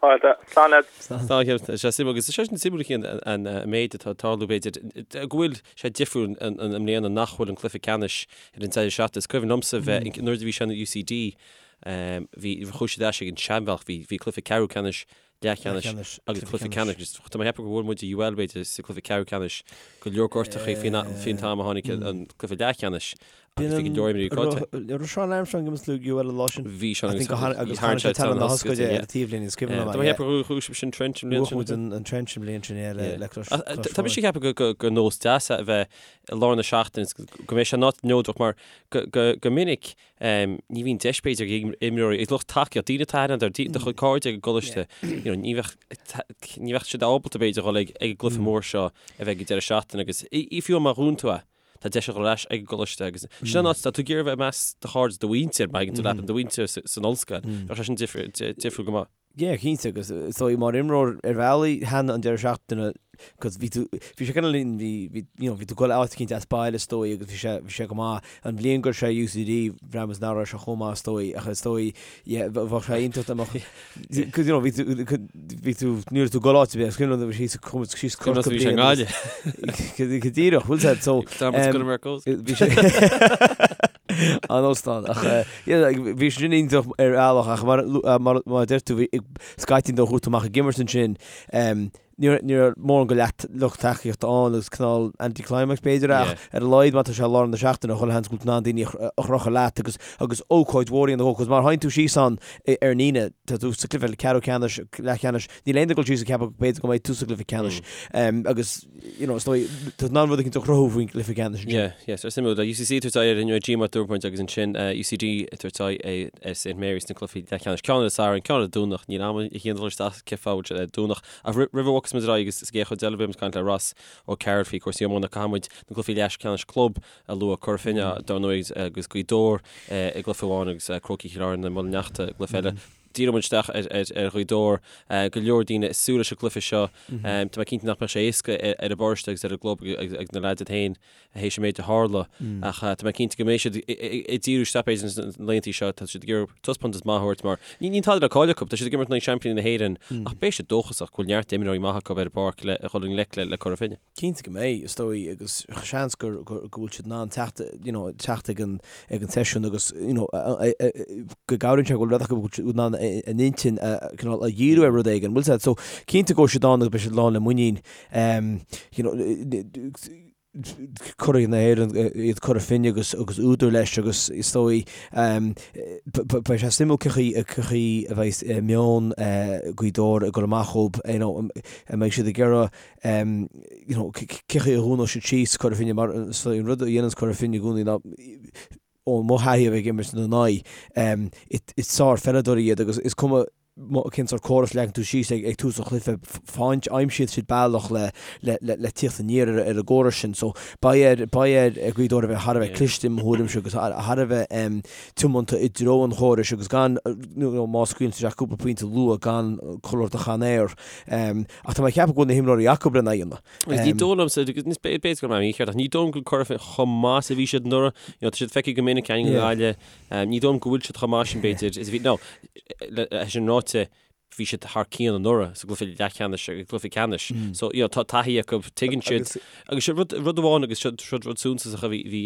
Fáilte. Slán leat.
Slán, a Chian. Tá sé suimiúil agus tá sé sin suimiúil a Chian an méid atá ag tarlú b'fhéidir go bhfuil sé difriúil i mbliana nach bhfuil an cluiche ceannais ar an deireadh seachtaine. Is cuimhin liomsa bheith nuair a bhí sé in UCD Bhí, chuaigh siad ar ais ag an seanbhealach, bhí, bhí cluiche ceathrú ceannais, leathcheannais agus cluiche ceannais. Tá mé ag ceapadh gur bhuail muid UL b'fhéidir sa cluiche ceathrú ceannais, go leor gortachaí faoin, faoin t-am a tháinig an cluiche leathcheannais agus bhí go leor imreoirí caillte.
Raibh Seán Armstrong ag imirt le UL an lá sin?
Bhí Seán
agus agus tharraing sé tallann na hoscaide ar an taobhlíne, is cuimhin liom
é. Tá mé ag ceapadh gur bhuaigh sibh sin Trench an bhliain
sin. Bhuaigh muid an Trench an bhliain sin, yeah, le, le Clois,
Clois Tá mise ag ceapadh gur, gur nós deas é a bheith i lár na seachtaine, go mbeidh sé in áit neodrach mar go, go, go minic Ní bhíonn deis b'fhéidir ag imreoirí, ag lucht tacaíocht, daoine atá aithne agat, do chuid cairde ag an gcoláiste, you know, ní bheadh, ní bheadh siad ábalta b'fhéidir dhul ag ag an gcluiche mór seo a bheidh ag an deireadh seachtaine agus i fiú má bhuann tú é, tá deis a dhul ar ais ag an gcoláiste agus sin an áit, tá tú ag iarraidh a bheith i measc do chairde, do mhuintir, má thagann tú leat, do mhuintir san ollscoil, bheadh sé sin difriúil go maith.
Yeah, cinnte, agus is dóigh mar imreoir ar bhealaí thaitin an deireadh seachtaine cos bhí tú, bhí sé kind of linn, bhí, bhí, you know, bhí tú ag dul áit eicínt as baile is dóigh agus bhí sé, bhí sé go maith. An bhliain go raibh sé UCD, bhraith muid nach raibh sé chomh maith is dóigh, ach is dóigh, yeah, bheadh sé iontach dá mbeadh, cos you know, bhí tú, bhí tú, ní raibh tú ag dul áit ar bith, is cuimhin liom bhí síos, chuaigh muid síos
Corcaigh
bhí sé i
nGaillimh.
Go díreach, bhfuil sé, so,
Tá muid go mar
bhí sé, An óstán. Ach yeah, bhí sé sin iontach ar bhealach ach mar mar mar a deir tú bhí scaití nuair a chuaigh tú amach ag imirt ansin ní raibh ní raibh mórán go leath lucht tacaíochta ann agus cineál anticlimax b'fhéidir ach ar a laghad má tá sé i lár na seachtaine chuile sheans go bhfuil tú in ann daoine a chrochadh leat agus agus ócáid mhór a dhéanamh cos má théann tú síos ann ar an Aoine tá tú sa cluiche ceathrú ceannais leathcheannais níl aon duine ag dul síos ag ceapadh b'fhéidir go mbeidh tú sa gcluiche ceannais agus you know, is dóigh, tá tú in ann rud éicint a chruthú faoin gcluiche ceannais
ansin. Yeah, yeah, so suimiúil. UCC ag tabhairt aghaidh ar an G mar dúirt muid agus ansin UCD ag tabhairt aghaidh ar St Mary's sna cluichí leathcheannais. Ceann ar an Satharn, ceann ar an Domhnach, níl am a chian dul isteach cén fáth a bhfuil sé ar Domhnach. Ach roimh a bhogfas muid ar aghaidh agus sa gcéad chuid eile beidh muid ag caint le Ross O'Carroll faoi chúrsaí iomána, caithfidh muid na cluichí leathcheannais club a lua, Cora Finne dar ndóigh agus Gaoth Dobhair i gcluiche amháin agus Crócaigh Chill Airne, Muileann nEachta i gcluiche eile. Díreoidh muid isteach ar Ghaoth Dobhair. Go leor daoine ag súil leis an gcluiche seo. Tá mé cinnte nach mbeadh sé éasca ar an bparáiste agus ar an gclub agus na leaids iad féin théis an méid a tharla. Ach tá mé cinnte go mbeidh siad ag díriú isteach b'fhéidir sna laethanta seo. Tá siad ag iarraidh taispeántas maith a thabhairt mar níl tada le cailleadh acu. Tá siad ag imirt in aghaidh seaimpíní na hÉireann ach beidh siad dóchasach go bhfuil neart imreoirí maithe acu ar an bpáirc le dhul i ngleic le Cora Finne.
Cinnte go mbeidh, is dóigh, agus seans go bhfuil siad in ann teacht, you know, teacht ag an, ag an seisiún agus, you know, go gcabhraíonn sé go bhfuil rud acu go bhfuil siad in ann a n-intinn a, cineál, a dhíriú ar rud éigin, bhfuil 'fhios a'd. So, cinnte go bhfuil siad ann agus beidh siad lán le muinín, you know, curaidh na hÉireann iad Cora Finne agus agus údar leis agus is dóigh beidh sé suimiúil cén chaoi cén chaoi a bheidh meon Ghaoth Dobhair ag dul amach dhóibh, you know, an mbeidh siad ag iarraidh you know, cén chaoi a dhúnfaidh siad síos Cora Finne mar is dóigh an rud a dhéananns Cora Finne i gcónaí ná ó mo thaithí a bheith ag imirt ina n-aghaidh, is sár-pheileadóirí iad agus is cuma cén sórt córas a leagann tú síos ag tús an chluiche, faigheann, aimsíonn siad bealach le le tíocht aniar ar an gcóras sin. So beidh ar beidh ar Ghaoth Dobhair a bheith thar a bheith cliste i mo thuairimse agus thar a bheith tiomanta i dtreo an chórais agus gan má scaoileann siad isteach cúpla pointe luath gan cur ort a chan aer. Ach tá mé ag ceapadh go bhfuil na himreoirí acu lena dhéanamh.
Agus ní dóigh liomsa, b'fhéidir go raibh mé mícheart, ach ní dóigh liom go bhfuil Cora Finne chomh maith is a bhí siad anuraidh. You know, tá siad feicthe go minic againn i nGaillimh. Ní dóigh liom go bhfuil siad chomh maith sin b'fhéidir is a bhí, no, é sin ráite, bhí siad thar cionn anuraidh sa gcluiche leathcheannais agus gcluiche ceannais. So, you know, tá taithí acu, tuigeann siad. Agus seo rud, rud amháin agus seo, seo rud suntasach a bhí, bhí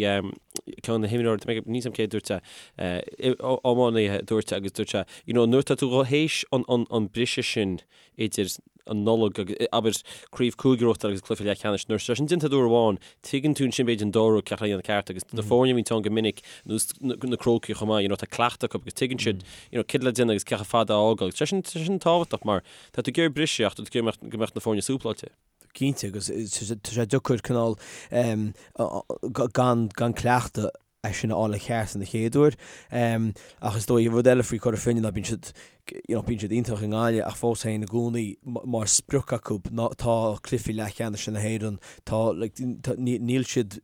ceann de na himreoirí, tá mé ag, níl 's a'm cé a dúirt é, iománaí a dúirt é agus dúirt sé, you know, nuair atá tú théis an, an, an briseadh sin idir an Nollaig agus, abair, craobh cúige a bhuachtáil agus cluiche leathcheannais, nuair atá sin déanta uair amháin, tuigeann tú ansin b'fhéidir an dara rud cé le dhéanamh ceart agus na foirne a bhíonn ann go minic, nós na Crócaigh chomh maith, you know, tá cleachtadh acu agus tuigeann siad, you know, céard le déanamh agus cé chomh fada a fhágáil. Tá sin, tá sin tábhachtach mar tá tú ag iarraidh briseadh ach tá tú ag iarraidh go mbeadh na foirne súpláilte.
Cinnte agus tá sé deacair cineál gan, gan cleachtadh é sin a fháil i gceart an chéad uair. Ach is dóigh, rud eile faoi Chora Finne ná bíonn siad, you know, bíonn siad iontach i nGaillimh ach fós féin i gcónaí mar sprioc acu ná tá cluichí leathcheannais na hÉireann, tá, like, tá, níl siad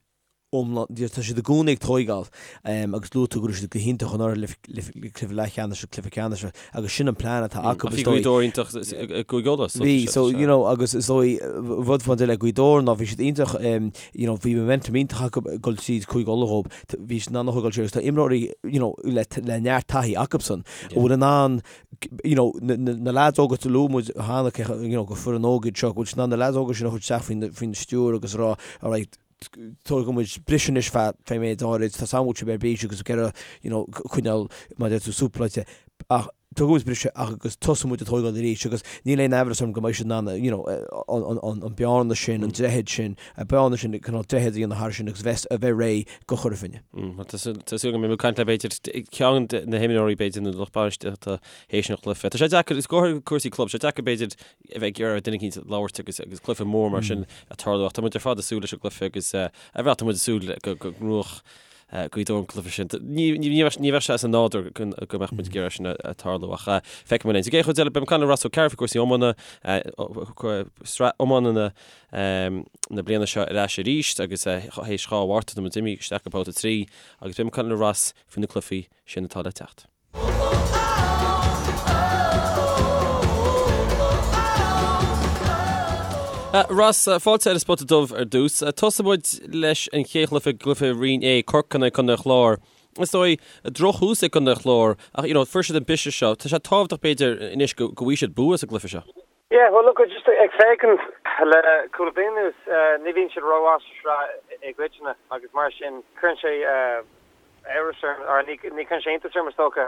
iomlán, tá siad i gcónaí ag tóigeáil agus luaigh tú go raibh siad go hiontach anuraidh le cluiche leathcheannais agus cluiche ceannais agus sin an plean atá acu
is dóigh. Bhí Gaoth Dobhair iontach i gCúige Uladh.
Bhí, so, you know, agus is dóigh rud fán le Gaoth Dobhair ná bhí siad iontach you know, bhí momentum iontach acu ag dul tríd Cúige Uladh dhób, bhí siad in ann a thógáil siar agus tá imreoirí, you know, le, le neart taithí acubsan, a bhfuil in ann, you know, na, na, na lads óga a luaigh muid cheana, you know, gur foireann óg iad seo, go bhfuil siad in ann na lads óga sin a chur isteach faoin, faoin stiúir agus a rá, alright, tógfaidh muid briseadh anois feadh, feadh méid áirid, tá a fhios agam go bhfuil sibh ar bís agus ag iarraidh, you know, coinneáil, mar a deir tú, súpláilte, ach tógfaidh muid briseadh ach agus tosóidh muid ag tógáil arís agus níl aon amhras orm go mbeidh siad in ann you know an bearna sin, an droichead sin, an bearna sin, cineál droichead a dhéanamh thar sin agus bheith a bheith réidh do Chora Finne.
Tá súil agam go mbeidh muid ag caint le b'fhéidir ceann de na himreoirí b'fhéidir nó lucht bainistíochta théis an chluiche. Tá sé deacair, is go háirithe cúrsaí club, tá sé deacair b'fhéidir a bheith ag iarraidh ar duine eicínt labhairt agus agus cluiche mór mar sin ag tarlú ach tá muid ar fad ag súil leis an gcluiche agus ar bhealach tá muid ag súil go go ngnóthódh Gaoth Dobhair an cluiche sin. Ní bheadh sé as an nádúr go mbeadh muid ag iarraidh sin a tarlú ach feicfidh muid linn. Sa gcéad chuid eile, beidh muid ag caint le Ross Ó Cearúil faoi chúrsaí iomána, sraith iomána na bliana seo ar ais arís agus théis 2 Mhárta tá muid imithe isteach go babhta 3 agus beidh muid ag caint le Ross faoi na cluichí sin atá le teacht. Ross, fáilte ar an Spota Dubh ar dtús. Tosóidh muid leis an chéad chluiche, cluiche Roinn A, Corcaigh in aghaidh Contae an Chláir. Is dóigh, drochthús ag Contae an Chláir ach you know, fuair siad an briseadh seo. Tá sé tábhachtach b'fhéidir anois go bhfaighidh siad bua sa gcluiche seo.
Yeah, well look, just ag féachaint le cúpla bliain anuas, ní bhíonn siad rómhaith sa sraith i gcoitinne agus mar sin cuireann sé amhras orm, or ní chuireann sé iontas orm is dócha,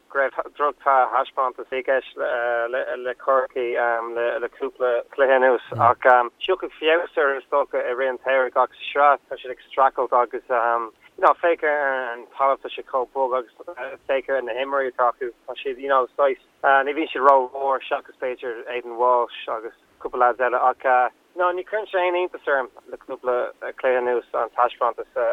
go raibh drochthaispeántas i gceist le Corcaigh le cúpla cluiche anuas. Ach tiocfaidh feabhas orthu is dócha i rith an tsamhraidh ach sa sraith tá siad ag streachailt agus you know féach ar an talamh tá sé chomh bog agus féach ar na himreoirí atá acu tá siad you know saghas ní bhíonn siad rómhór seachas b'fhéidir Aidan Walsh agus cúpla lads eile ach No, ní chuireann sé aon iontas orm le cúpla cluiche anuas an taispeántas a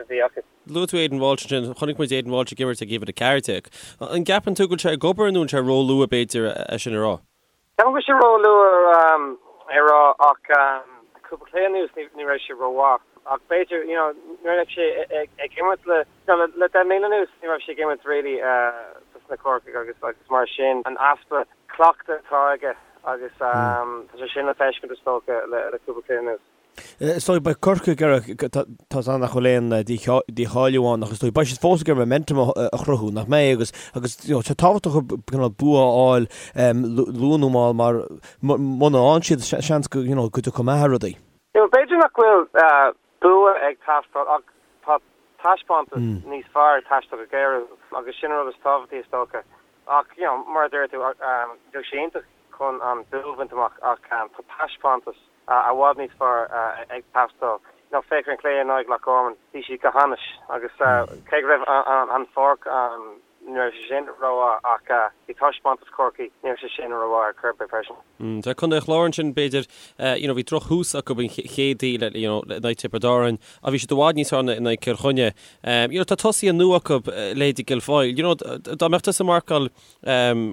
bhí acu.
Luaigh tú Aidan Walsh ansin. Chonaic muid Aidan Walsh ag imirt ag uimhir 14. An gceapann tú go bhfuil sé ag obair nó an sé róluath b'fhéidir é sin a rá?
Ceapaim go bhfuil sé róluath é a rá ach cúpla cluiche anuas ní raibh sé rómhaith. Ach b'fhéidir, you know, nuair a bheidh sé ag imirt le, you know, le 10 mbliana anuas, ní raibh sé ag imirt really dos na Corcaigh agus agus mar sin an easpa cleachta atá aige agus tá sé sin le feiscint is dócha le le cúpla cluiche anuas.
Is dóigh, beidh Corcaigh ag iarraidh, tá a fhios nach bhfuil aon dícháiliú ann ach is dóigh, beidh siad fós ag iarraidh momentum a chruthú, nach mbeidh? Agus, agus you know, tá sé tábhachtach cineál bua a fháil luath nó mall mar muna fhaigheann siad, seans go, you know, go dtiocfaidh meath ar rudaí.
You know, b'fhéidir nach bhfuil bua ag teastáil ach tá taispeántas níos fearr ag teastáil go géar uathu agus sin an rud is tábhachtaí is dócha. Ach, you know, mar a deir tú, bheadh sé iontach chun an bua a bhaint amach ach tá taispeántas i bhfad níos fearr ag teastáil. You know, féach ar an cluiche in aghaidh Loch Garman, bhí siad go hainnis agus cé go raibh an pháirc Ní raibh sé sin rómhaith ach bhí taispeántas Chorcaí, ní raibh sé sin rómhaith ar chor ar bith freisin.
Tá Contae an Chláir ansin b'fhéidir, you know bhí drochthús acu an chéadaoin le, you know, in aghaidh Tiobraid Árann ach bhí siad i bhfad níos fearr in aghaidh Cill Chainnigh. You know tá tosaithe nua acu, leithéidí Guilfoyle, you know dá mbeadh tusa ag marcáil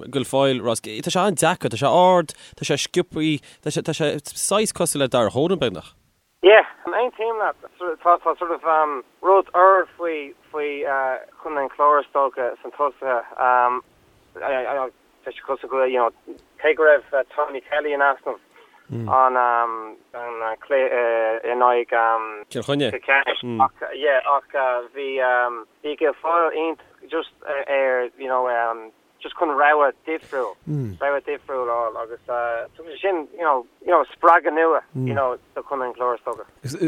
Guilfoyle, Ross, tá sé an-deacair, tá sé ard, tá sé sciobthaí, tá sé, tá sé saghas cosúil le Darragh Horan beagnach.
Yeah, aontaím leat. Tá tá sort of rud úr faoi faoi Chontae an Chláir is dócha sna tosaithe. Tá sé cosúil go you know cé go raibh Tommy Kelly in easnamh an an cluiche in aghaidh
Cill Chainnigh.
Cill Chainnigh ach yeah ach bhí bhí Guilfoyle iontach just ar you know just chun rogha difriúil, rogha difriúil a fháil agus tugann sé sin, you know, you know, spreagadh nua, you know, do Chontae an Chláir is dócha.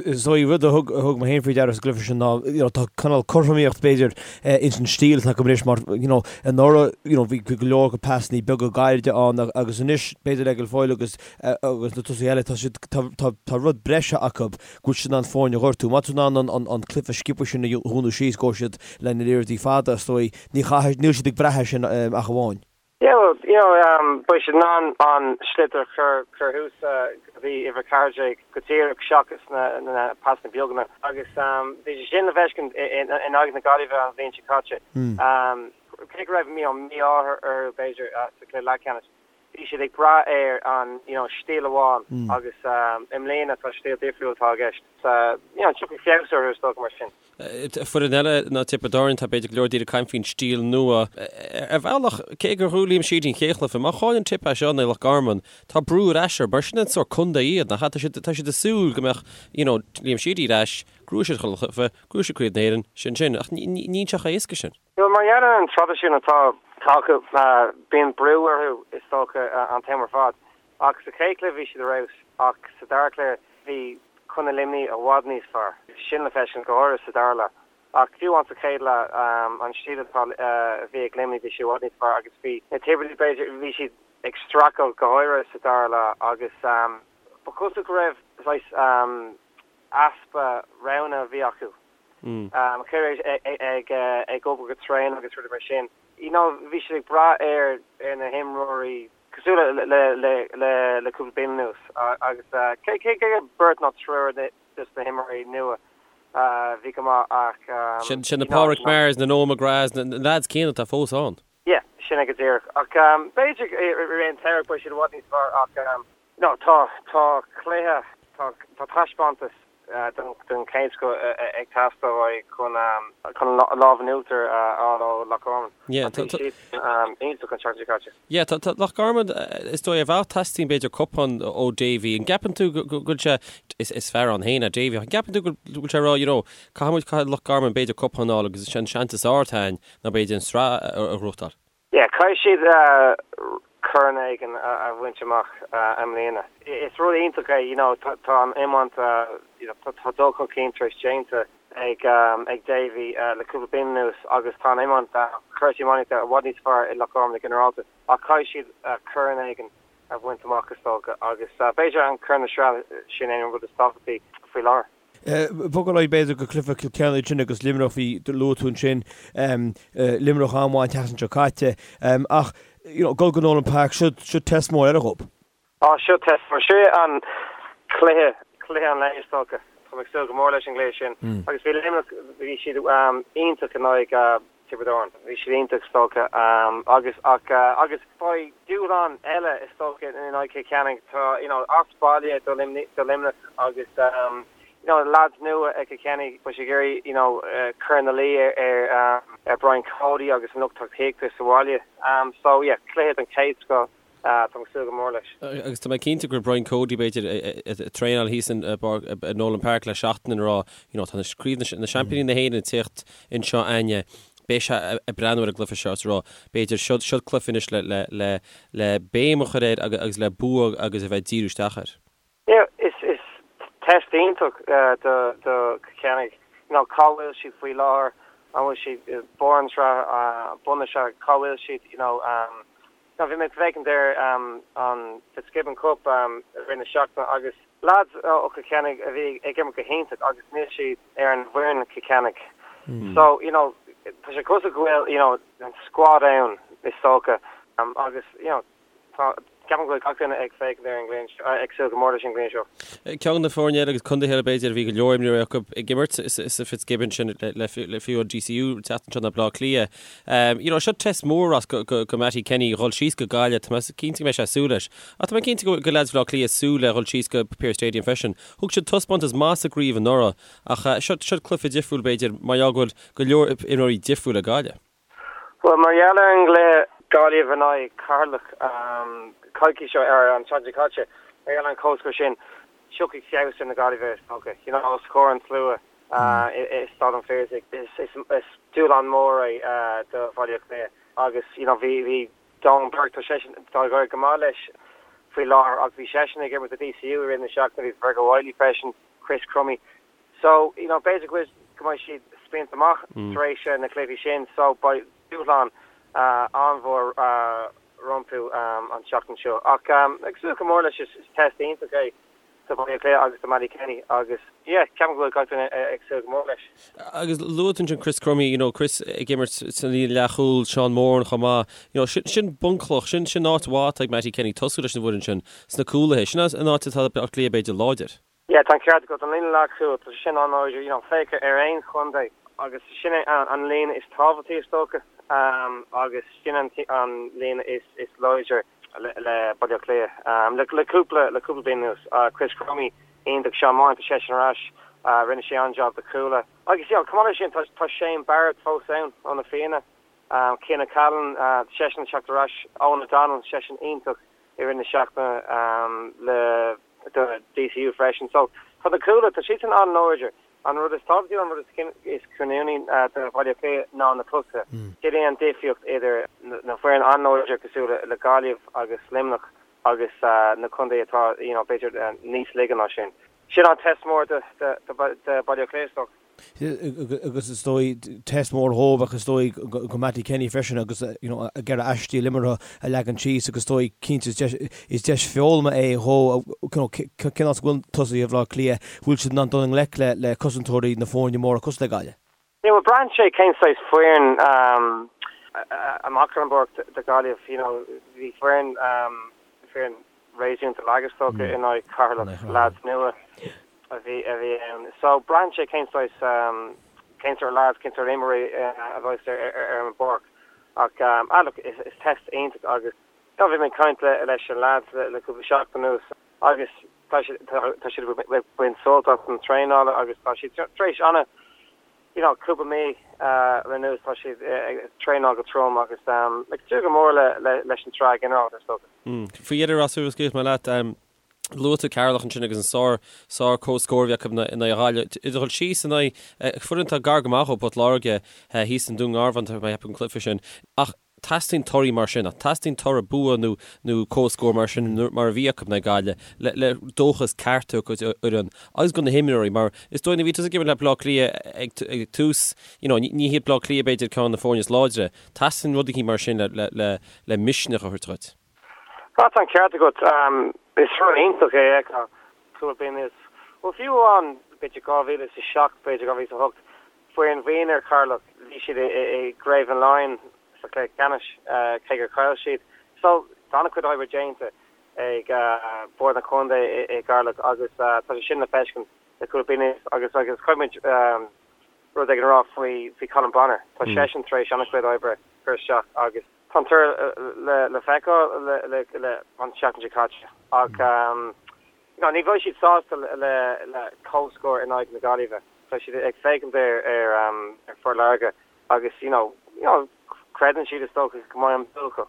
Is dóigh, rud a thug, a thug mé féin faoi deara sa gcluiche sin ná, you know, tá cineál cothromaíocht b'fhéidir ins an stíl atá acu anois mar, you know, anuraidh, you know, bhí go leor pasannaí beaga gairide ann agus anois b'fhéidir le Guilfoyle agus, agus na tosaithe eile, tá siad, tá, tá, tá rud breise acu go bhfuil siad in ann foirne a ghortú. Má tá tú in ann an, an, an cluiche sciobtha sin a dhúnadh síos, go bhfuil siad le na liathróidí fada, is dóigh, Ní chaithfidh, níl siad ag brath air sin ach amháin.
Yeah, well, you know, um, beidh siad in ann an sliotar a chur, chur thuas go dtí uimhir 14 go díreach seachas na, na pasanna beaga. Agus um, bhí sé sin le feiscint in aghaidh na Gaillimhe an bhliain seo caite. Um, cé go raibh you know, mí-ádh orthu b'fhéidir uh, sa chluiche leathcheannais, bhí siad ag brath ar an you know, stíl amháin agus um, i mbliana tá stíl difriúil atá i gceist. So, you know, tiocfaidh feabhas orthu is dócha mar sin.
Foireann eile ná Tiobraid Árann, tá b'fhéidir go leor daoine ag caint faoin stíl nua. Ar bhealach, cé gur ghnóthaigh Liam Sheedy an chéad chluiche, má chailleann Tip é seo in aghaidh Loch Garman, tá brú ar ais orthu, mar sin an sórt contae iad, nach ea? Tá siad, tá siad ag súil go mbeadh, you know, Liam Sheedy ar ais, gnóthóidh siad chuile chluiche, gnóthóidh siad Craobh na hÉireann, sin sin. Ach ní, ní, níl sé chomh héasca sin.
Bhuel, mar gheall ar an traidisiún atá acu, bíonn brú orthu, is dócha, an t-am ar fad. Ach sa chéad chluiche bhí siad ar fheabhas, ach sa dara cluiche bhí Contae Luimnigh i bhfad níos fearr. Sin le feiscint go háirithe sa dara leath. Ach fiú amháin sa chéad leath, an stíl atá a bhí ag Luimnigh bhí sé i bhfad níos fearr agus bhí na Tiobradaigh b'fhéidir, bhí siad ag streachailt go háirithe sa dara leath agus ba chosúil go raibh saghas easpa roghanna a bhí acu. Cé ag ag obair go tréan agus rudaí mar sin. You know bhí siad ag brath ar na himreoirí cosúil le le cúpla bliain anuas agus cé cé gur beirt nó triúr de na himreoirí nua bhí go maith ach
Sin sin na Pádraic Mahers, na Noel McGraths, na lads céanna atá fós ann.
Yeah, sin é go díreach. Ach b'fhéidir i rith an tsamhraidh beidh siad i bhfad níos fearr ach no tá tá cluiche tá tá taispeántas den chéad scoth ag teastáil uaidh chun chun lámh in uachtar a fháil ó Loch Garman.
Yeah,
Bhí siad iontach an tseachtain seo caite.
Yeah, tá tá Loch Garman is dóigh ar bhealach teastaíonn b'fhéidir cupán ó Davy. An gceapann tú go go bhfuil sé is is fear ann féin é Davy ach an gceapann tú go bhfuil sé ag rá you know caithfidh muid caithfidh Loch Garman b'fhéidir cupán a fháil agus is é an seans is fearr atá againn ná b'fhéidir an sraith a ghnóthachtáil?
Yeah, caithfidh siad corn éigin a bhaint amach i mbliana. Is rud iontach é, you know, tá an iomáint, you know, tá dul chun cinn tar éis déanta ag ag Davy le cúpla bliain anuas agus tá an iomáint, cúrsaí iománaíochta i bhfad níos fearr i Loch Garman go ginearálta ach caithfidh siad corn éigin a bhaint amach is dócha agus b'fhéidir an corn na sraithe sin é an rud is tábhachtaí faoi láthair.
Bogadh ar aghaidh b'fhéidir go cluiche Chill Chainnigh ansin agus Luimneach bhí luaigh tú ansin Luimneach an-mhaith an tseachtain seo caite ach you know dul go Nolan Park seo seo test mór eile dhóibh.
Á seo test mór. Seo an cluiche cluiche an lae is dócha. Tá mé ag súil go mór leis an gcluiche sin agus bhí Luimneach bhí siad iontach in aghaidh Tiobraid Árann. Bhí siad iontach is dócha agus ach agus beidh dúshlán eile is dócha in aghaidh Chill Chainnigh. Tá you know as baile do Luimneach agus. you know, lads nua ag Cill Chainnigh, beidh siad ag iarraidh, you know, cur ina luí ar ar Brian Cody agus an lucht tacaíochta sa bhaile. So yeah, cluiche den chéad scoth, táim ag súil go mór leis.
Agus tá mé cinnte go raibh Brian Cody, b'fhéidir, ag traenáil thíos in Nolan Park le seachtain ag rá, you know, tá na craobh na seaimpíní na hÉireann ag tíocht anseo againne, beidh sé ag breathnú ar an gcluiche seo is ag rá, b'fhéidir, seo seo cluiche anois le le le le béim a chur air agus le bua agus a bheith ag díriú isteach air.
Yeah, is is test iontach do do Cill Chainnigh. You know, cá bhfuil siad faoi láthair? An bhfuil siad barr an tsraith, bun na sraithe, cá bhfuil siad, you know, you know, bhí mé ag féachaint ar an Fitzgibbon Cup i rith na seachtaine agus lads ó Chill Chainnigh a bhí ag imirt go hiontach agus níl siad ar an bhfoireann Cill Chainnigh. So, you know, tá sé cosúil go bhfuil, you know, an squad ann is dócha agus, you know, Tá, ceapaim go bhfuil gach duine ag féachaint ar an gcluiche seo, ag súil go mór leis an gcluiche seo.
Ceann de na foirne eile agus contaetha eile b'fhéidir a bhí go leor imreoirí acu ag imirt sa Fitzgibbon sin le fiú an DCU an tseachtain seo ná Baile Átha Cliath. You know, seo test mór as go, go, go Mattie Kenny dhul síos go Gaillimh, tá mé cinnte go mbeidh sé ag súil leis. Ach tá mé cinnte go go leaids Bhaile Átha Cliath ag súil le dhul síos go Pearse Stadium freisin. Thug siad taispeántas maith sa gcraobh anuraidh ach seo, seo cluiche difriúil b'fhéidir mar gheall go bhfuil go leor imreoirí difriúil ag Gaillimh.
Bhuel, mar gheall ar an gcluiche Gaillimh in aghaidh Ceatharlach coicís ó ar an tseachtain seo caite, mar gheall ar an comhscór sin, tiocfaidh feabhas ar na Gaillimhigh is dócha. You know, os comhair an tslua i Staid an Phiarsaigh, is dúshlán mór é do Bhaile Átha Cliath agus you know bhí bhí Donn Burke, tá seisean, tá ag éirí go maith leis faoi láthair ach bhí seisean ag imirt do DCU i rith na seachtaine, bhí Fergal Wylie freisin, Chris Crummey. So, you know, b'fhéidir go bhfuil, go mbeidh siad spíonta amach tar éis na cluichí sin, so beidh dúshlán an-mhór rompu an tseachtain seo. Ach ag súil go mór leis, is test iontach é do Bhaile Átha Cliath agus do Mattie Kenny agus, yeah, ceapaim go bhfuil gach duine ag súil go mór leis.
Agus luaigh tú ansin Chris Crummey, you know, Chris ag imirt sa líne leathchúil, Seán Moran chomh maith, you know, sin, sin bunchloch, sin, sin áit mhaith atá ag Mattie Kenny tosú leis an bhfoireann sin sna cúlaithe, sin an áit atá Baile Átha Cliath b'fhéidir láidir.
Yeah, tá an ceart agat, an líne leathchúil, tá sé sin an-láidir, you know, féach ar aon chontae agus sin é an líne is tábhachtaí is dócha agus sin an líne is is láidre le Baile Átha Cliath. Le le cúpla le cúpla bliain anuas, Chris Crummey iontach, Seán Moran, tá seisean ar ais, rinne sé an-jab do Chuala. Agus you know, chomh maith leis sin, tá tá Shane Barrett fós ann ó na Fianna, Cian O'Callaghan, tá seisean ag teacht ar ais, Eoghan O'Donnell, seisean iontach i rith na seachtaine le do DCU freisin. So, tá na cúlaithe, tá siadsan an-láidir. An rud is tábhachtaí, an rud is cinniúnaí do Bhaile Átha Cliath ná na tosaithe. Sin é an difríocht idir na foireann an-láidir cosúil le Gaillimh agus Luimneach agus na contaetha atá, you know, b'fhéidir níos laige ná sin. Sin an test mór do Bhaile Átha Cliath, is dócha.
Agus is dóigh, test mór dhóibh ach is dóigh go Mattie Kenny freisin agus you know ag iarraidh a stíl imeartha a leagan síos agus is dóigh cinnte is deis is deis foghlama é dhó you know cén áit a bhfuil tosaithe Bhaile Átha Cliath, bhfuil siad in ann dul i ngleic le le cosantóirí na foirne móra cosúil le Gaillimh.
Yeah bhuel braitheann sé cén saghas foireann amach ar an bpáirc do Ghaillimh you know bhí foireann foireann réasúnta lag is dócha in aghaidh Cheatharlach, leaids nua a bhí a bhí ann. So braitheann sé cén saghas cén sórt leaids, cén sórt imreoirí a bheas ar ar an bpáirc. Ach ah look is is test iontach agus you know bhí mé ag caint le leis an leaids le le cúpla seachtain anuas agus tá siad tá siad ag baint sult as an traenáil agus tá siad tar éis ana you know, cúpla mí anuas tá siad ag traenáil go trom agus ag súil go mór leis an tsraith ghinearálta is
dócha. Faoi dheireadh Ross scaoilfidh mé leat, luaigh tú Ceatharlach ansin agus an sár sár comhscór a bhí acu in aghaidh Ghaillimh. Ag dul síos in aghaidh foireann atá gar go maith ó Port Láirge thíos i nDún Garbhán tá mé ag ceapadh an cluiche sin. Ach Teastaíonn torthaí mar sin, ach teastaíonn toradh bua nó nó comhscór mar sin mar a bhí acu in aghaidh Gaillimh le le dóchas ceart a thabhairt don fhoireann agus do na himreoirí mar is dóigh nuair a bhí tusa ag imirt le Baile Átha Cliath ag ag tús you know ní ní hiad Baile Átha Cliath b'fhéidir ceann de na foirne is láidre. Teastaíonn rud eicínt mar sin le le le le misneach a thabhairt
dhuit. Tá an ceart agat. Is rud iontach é a fheiceáil cúpla bliain anuas. Bhuel fiú amháin b'fhéidir 2007 b'fhéidir 2008 Foireann mhionúir Cheatharlach, bhí siad i gCraobh an Laighin sa chluiche ceannais, cé gur chaill siad. So, tá an-chuid oibre déanta ag Bord an Chontae i gCeatharlach agus tá sé sin le feiscint le cúpla bliain anuas agus agus caithfidh muid rud éigin a rá faoi faoi Colm Bonnar. Tá seisean tar éis an-chuid oibre a chur isteach agus tá an toradh le feiceáil le an tseachtain seo caite ach. you know, ní bheidh siad sásta le le comhscór in aghaidh na Gaillimhe. Tá siad ag féachaint ar ar ar Phort Láirge agus you know, you know, creideann siad is dócha go mbeidh an bua acu.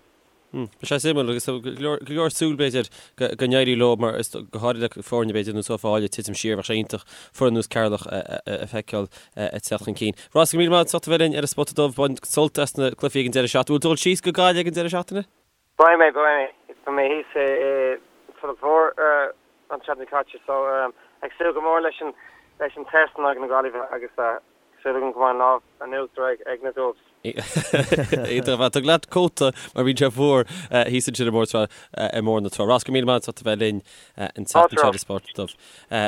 Beidh sé suimiúil agus go leor súil b'fhéidir go n-éirí leo mar is go háirithe le foirne b'fhéidir ar nós Uíbh Fhailí ag titim siar bheadh sé iontach foireann ar nós Ceatharlach a feiceáil ag teacht chun cinn. Ross, go raibh míle maith agat as ucht a bheith linn ar an Spota Dubh. Bain sult as na cluichí ag an deireadh seachtaine. Bhfuil tú ag dul síos go Gaillimh ag an deireadh seachtaine?
Beidh mé, beidh mé. Beidh mé thíos i Tulach Mhór an tseachtain seo caite so ag súil go mór leis an leis an test in aghaidh na Gaillimhe agus súil agam go mbeidh an lámh in uachtar ag na Dubs.
Iontach ar fad. Tóg leat cóta mar bíonn sé fuar thíos ansin i mBóthar na Trá. Ross, go raibh míle maith agat as ucht a bheith linn an tseachtain seo ar an Spota Dubh.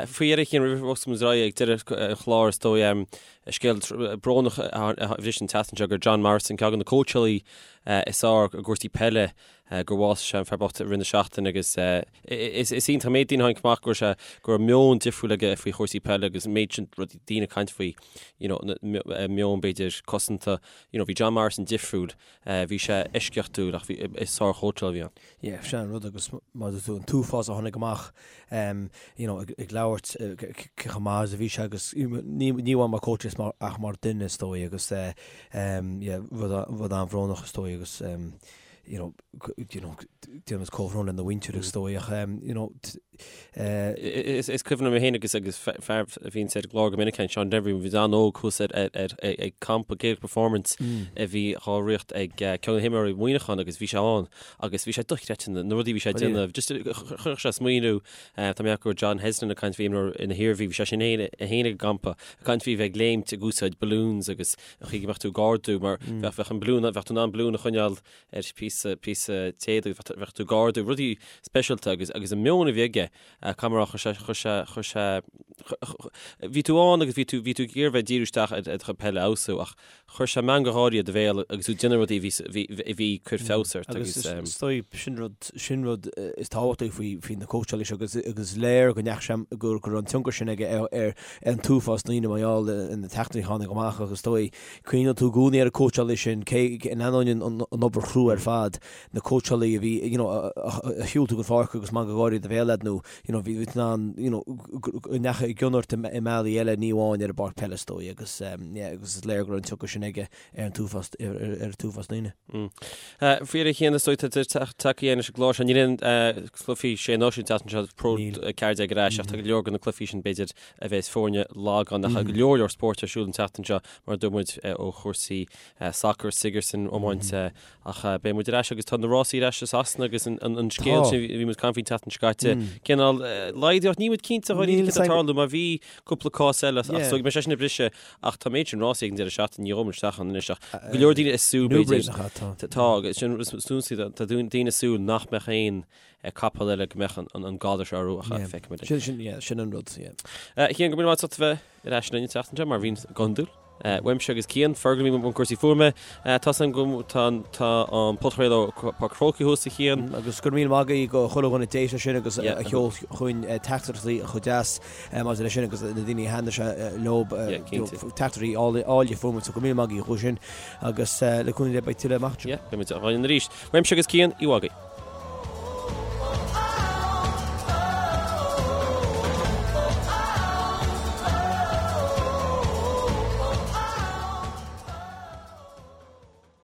Faoi dheireadh a Chian, roimh a bhosfaidh muid ar aghaidh ag deireadh an chláir is dóigh, scéal brónach a bhris an tseachtain seo gur John Morrison, ceann de na cóitseálaí is fearr i gcúrsaí peile, gur bhásaigh sé an fear bocht i rith na seachtaine agus is iontach an méid daoine a tháinig amach go raibh sé go raibh meon difriúil aige faoi chúrsaí peile agus an méid sin rudaí daoine ag caint faoi you know meon b'fhéidir cosanta you know bhí John Morrison difriúil bhí sé eisceachtúil ach bhí is sár-chóitseálaí a bhí ann.
Yeah, sin an rud agus mar a dúirt tú an t-uafás a tháinig amach you know ag labhairt cé chomh maith is a bhí sé agus ní amháin mar coach is mar ach mar duine is dóigh agus yeah rud rud an-bhrónach is dóigh agus you know you know déanaimid comhbhrón lena mhuintir is dóigh ach you know
Is is cuimhin liom féin agus agus fear a bhíonn ar an gclár go minic Seán Denvir bhí an-óg thuas ar ar ag campa Gaelic Performance a bhí á ritheacht ag ceann de na himreoirí Mhuineacháin agus bhí sé ann agus bhí sé dochreidte na rudaí a bhí sé ag déanamh just chuirfeadh sé smaoineamh tá mé ag go John Heslin ag caint faoi imreoir na hIarmhí bhí sé sin féin ag an gcampa ag caint faoi bheith ag léimt ag úsáid balloons agus an chaoi go mbeadh tú ag ardú mar bheadh bheadh an balloon bheadh tú in ann balloon a choinneáil ar phíosa píosa téada agus bheadh tú ag ardú rudaí speisialta agus agus an meon a bhí aige caithfidh mé a rá chuir sé chuir sé chuir sé bhí tú ann agus bhí tú bhí tú ag iarraidh bheith ag díriú isteach ar do chuid peile a fheabhsú ach chuir sé meangadh gáirí i do bhéal agus tú ag déanamh rudaí a bhí a bhí ag cur feabhas ort
agus is dóigh sin rud sin rud is tábhachtaí faoi faoi na cóitseálaí seo agus agus is léir go ndeachaigh sé go go raibh an tionchar sin aige ar ar an t-uafás daoine mar gheall ar na teachtaireachtaí a tháinig amach agus is dóigh cuimhneoidh tú i gcónaí ar an cóitseálaí sin cé in ainneoin an an obair chrua ar fad na cóitseálaí a bhí you know a shiúil tú go pháirc agus meangadh gáirí i do bhéal agat nó you know bhí tú in ann you know go ndeachaigh i gcion ort i mbealaí eile ní amháin ar an bpáirc peile is dóigh agus yeah agus is léir go raibh an tionchar sin aige ar an t-uafás ar an t-uafás daoine.
Faoi dheireadh a Chian is dóigh tá tagtha leis an gclár seo níl aon cluichí sé náisiún an tseachtain seo Pro 14 ar ais ach tá go leor de na cluichí sin b'fhéidir a bheas foirne lag ann ach go leor leor spóirt ar siúl an tseachtain seo mar a dúirt muid ó chúrsaí sacair Sigerson iomáint ach beidh muid ar ais agus tá na rásaí ar ais i Sasana agus an scéal sin a bhí muid ag caint faoin tseachtain seo caite cineál laghdaíocht níl muid cinnte dháiríre céard atá ag tarlú mar bhí cúpla cás eile ach so beidh sé sin ag briseadh ach tá méid sin rásaí ag an deireadh seachtaine ní ghabhfaidh muid isteach ann anois ach go leor daoine ag súil b'fhéidir tá agus sin tá daoine ag súil nach mbeadh aon capall eile go mbeadh an galar seo orthu ach feicfimid.
Sin sin yeah sin an rud yeah.
A Chian go raibh míle maith agat as ucht a bheith ar ais linn an tseachtain seo mar a bhíonn go hiondúil. Uaimse agus Cian, Fergal a bhí i mbun cúrsaí fuaime. Tá san go tá tá an podchraoladh ó Páirc an Chrócaigh thuas a Chian.
Agus go raibh míle maith agaibh go chuile dhuine a d'éist leis sin agus a sheol chugainn teachtaireachtaí chomh deas maidir leis sin agus na daoine a thaitnigh sé leo teachtaireachtaí áille fuair muid so go raibh míle maith agaibh chucu sin agus le cúnamh Dé beidh tuilleadh amach anseo.
Yeah, beidh muid againn arís. Uaimse agus Cian, oíche mhaith agaibh.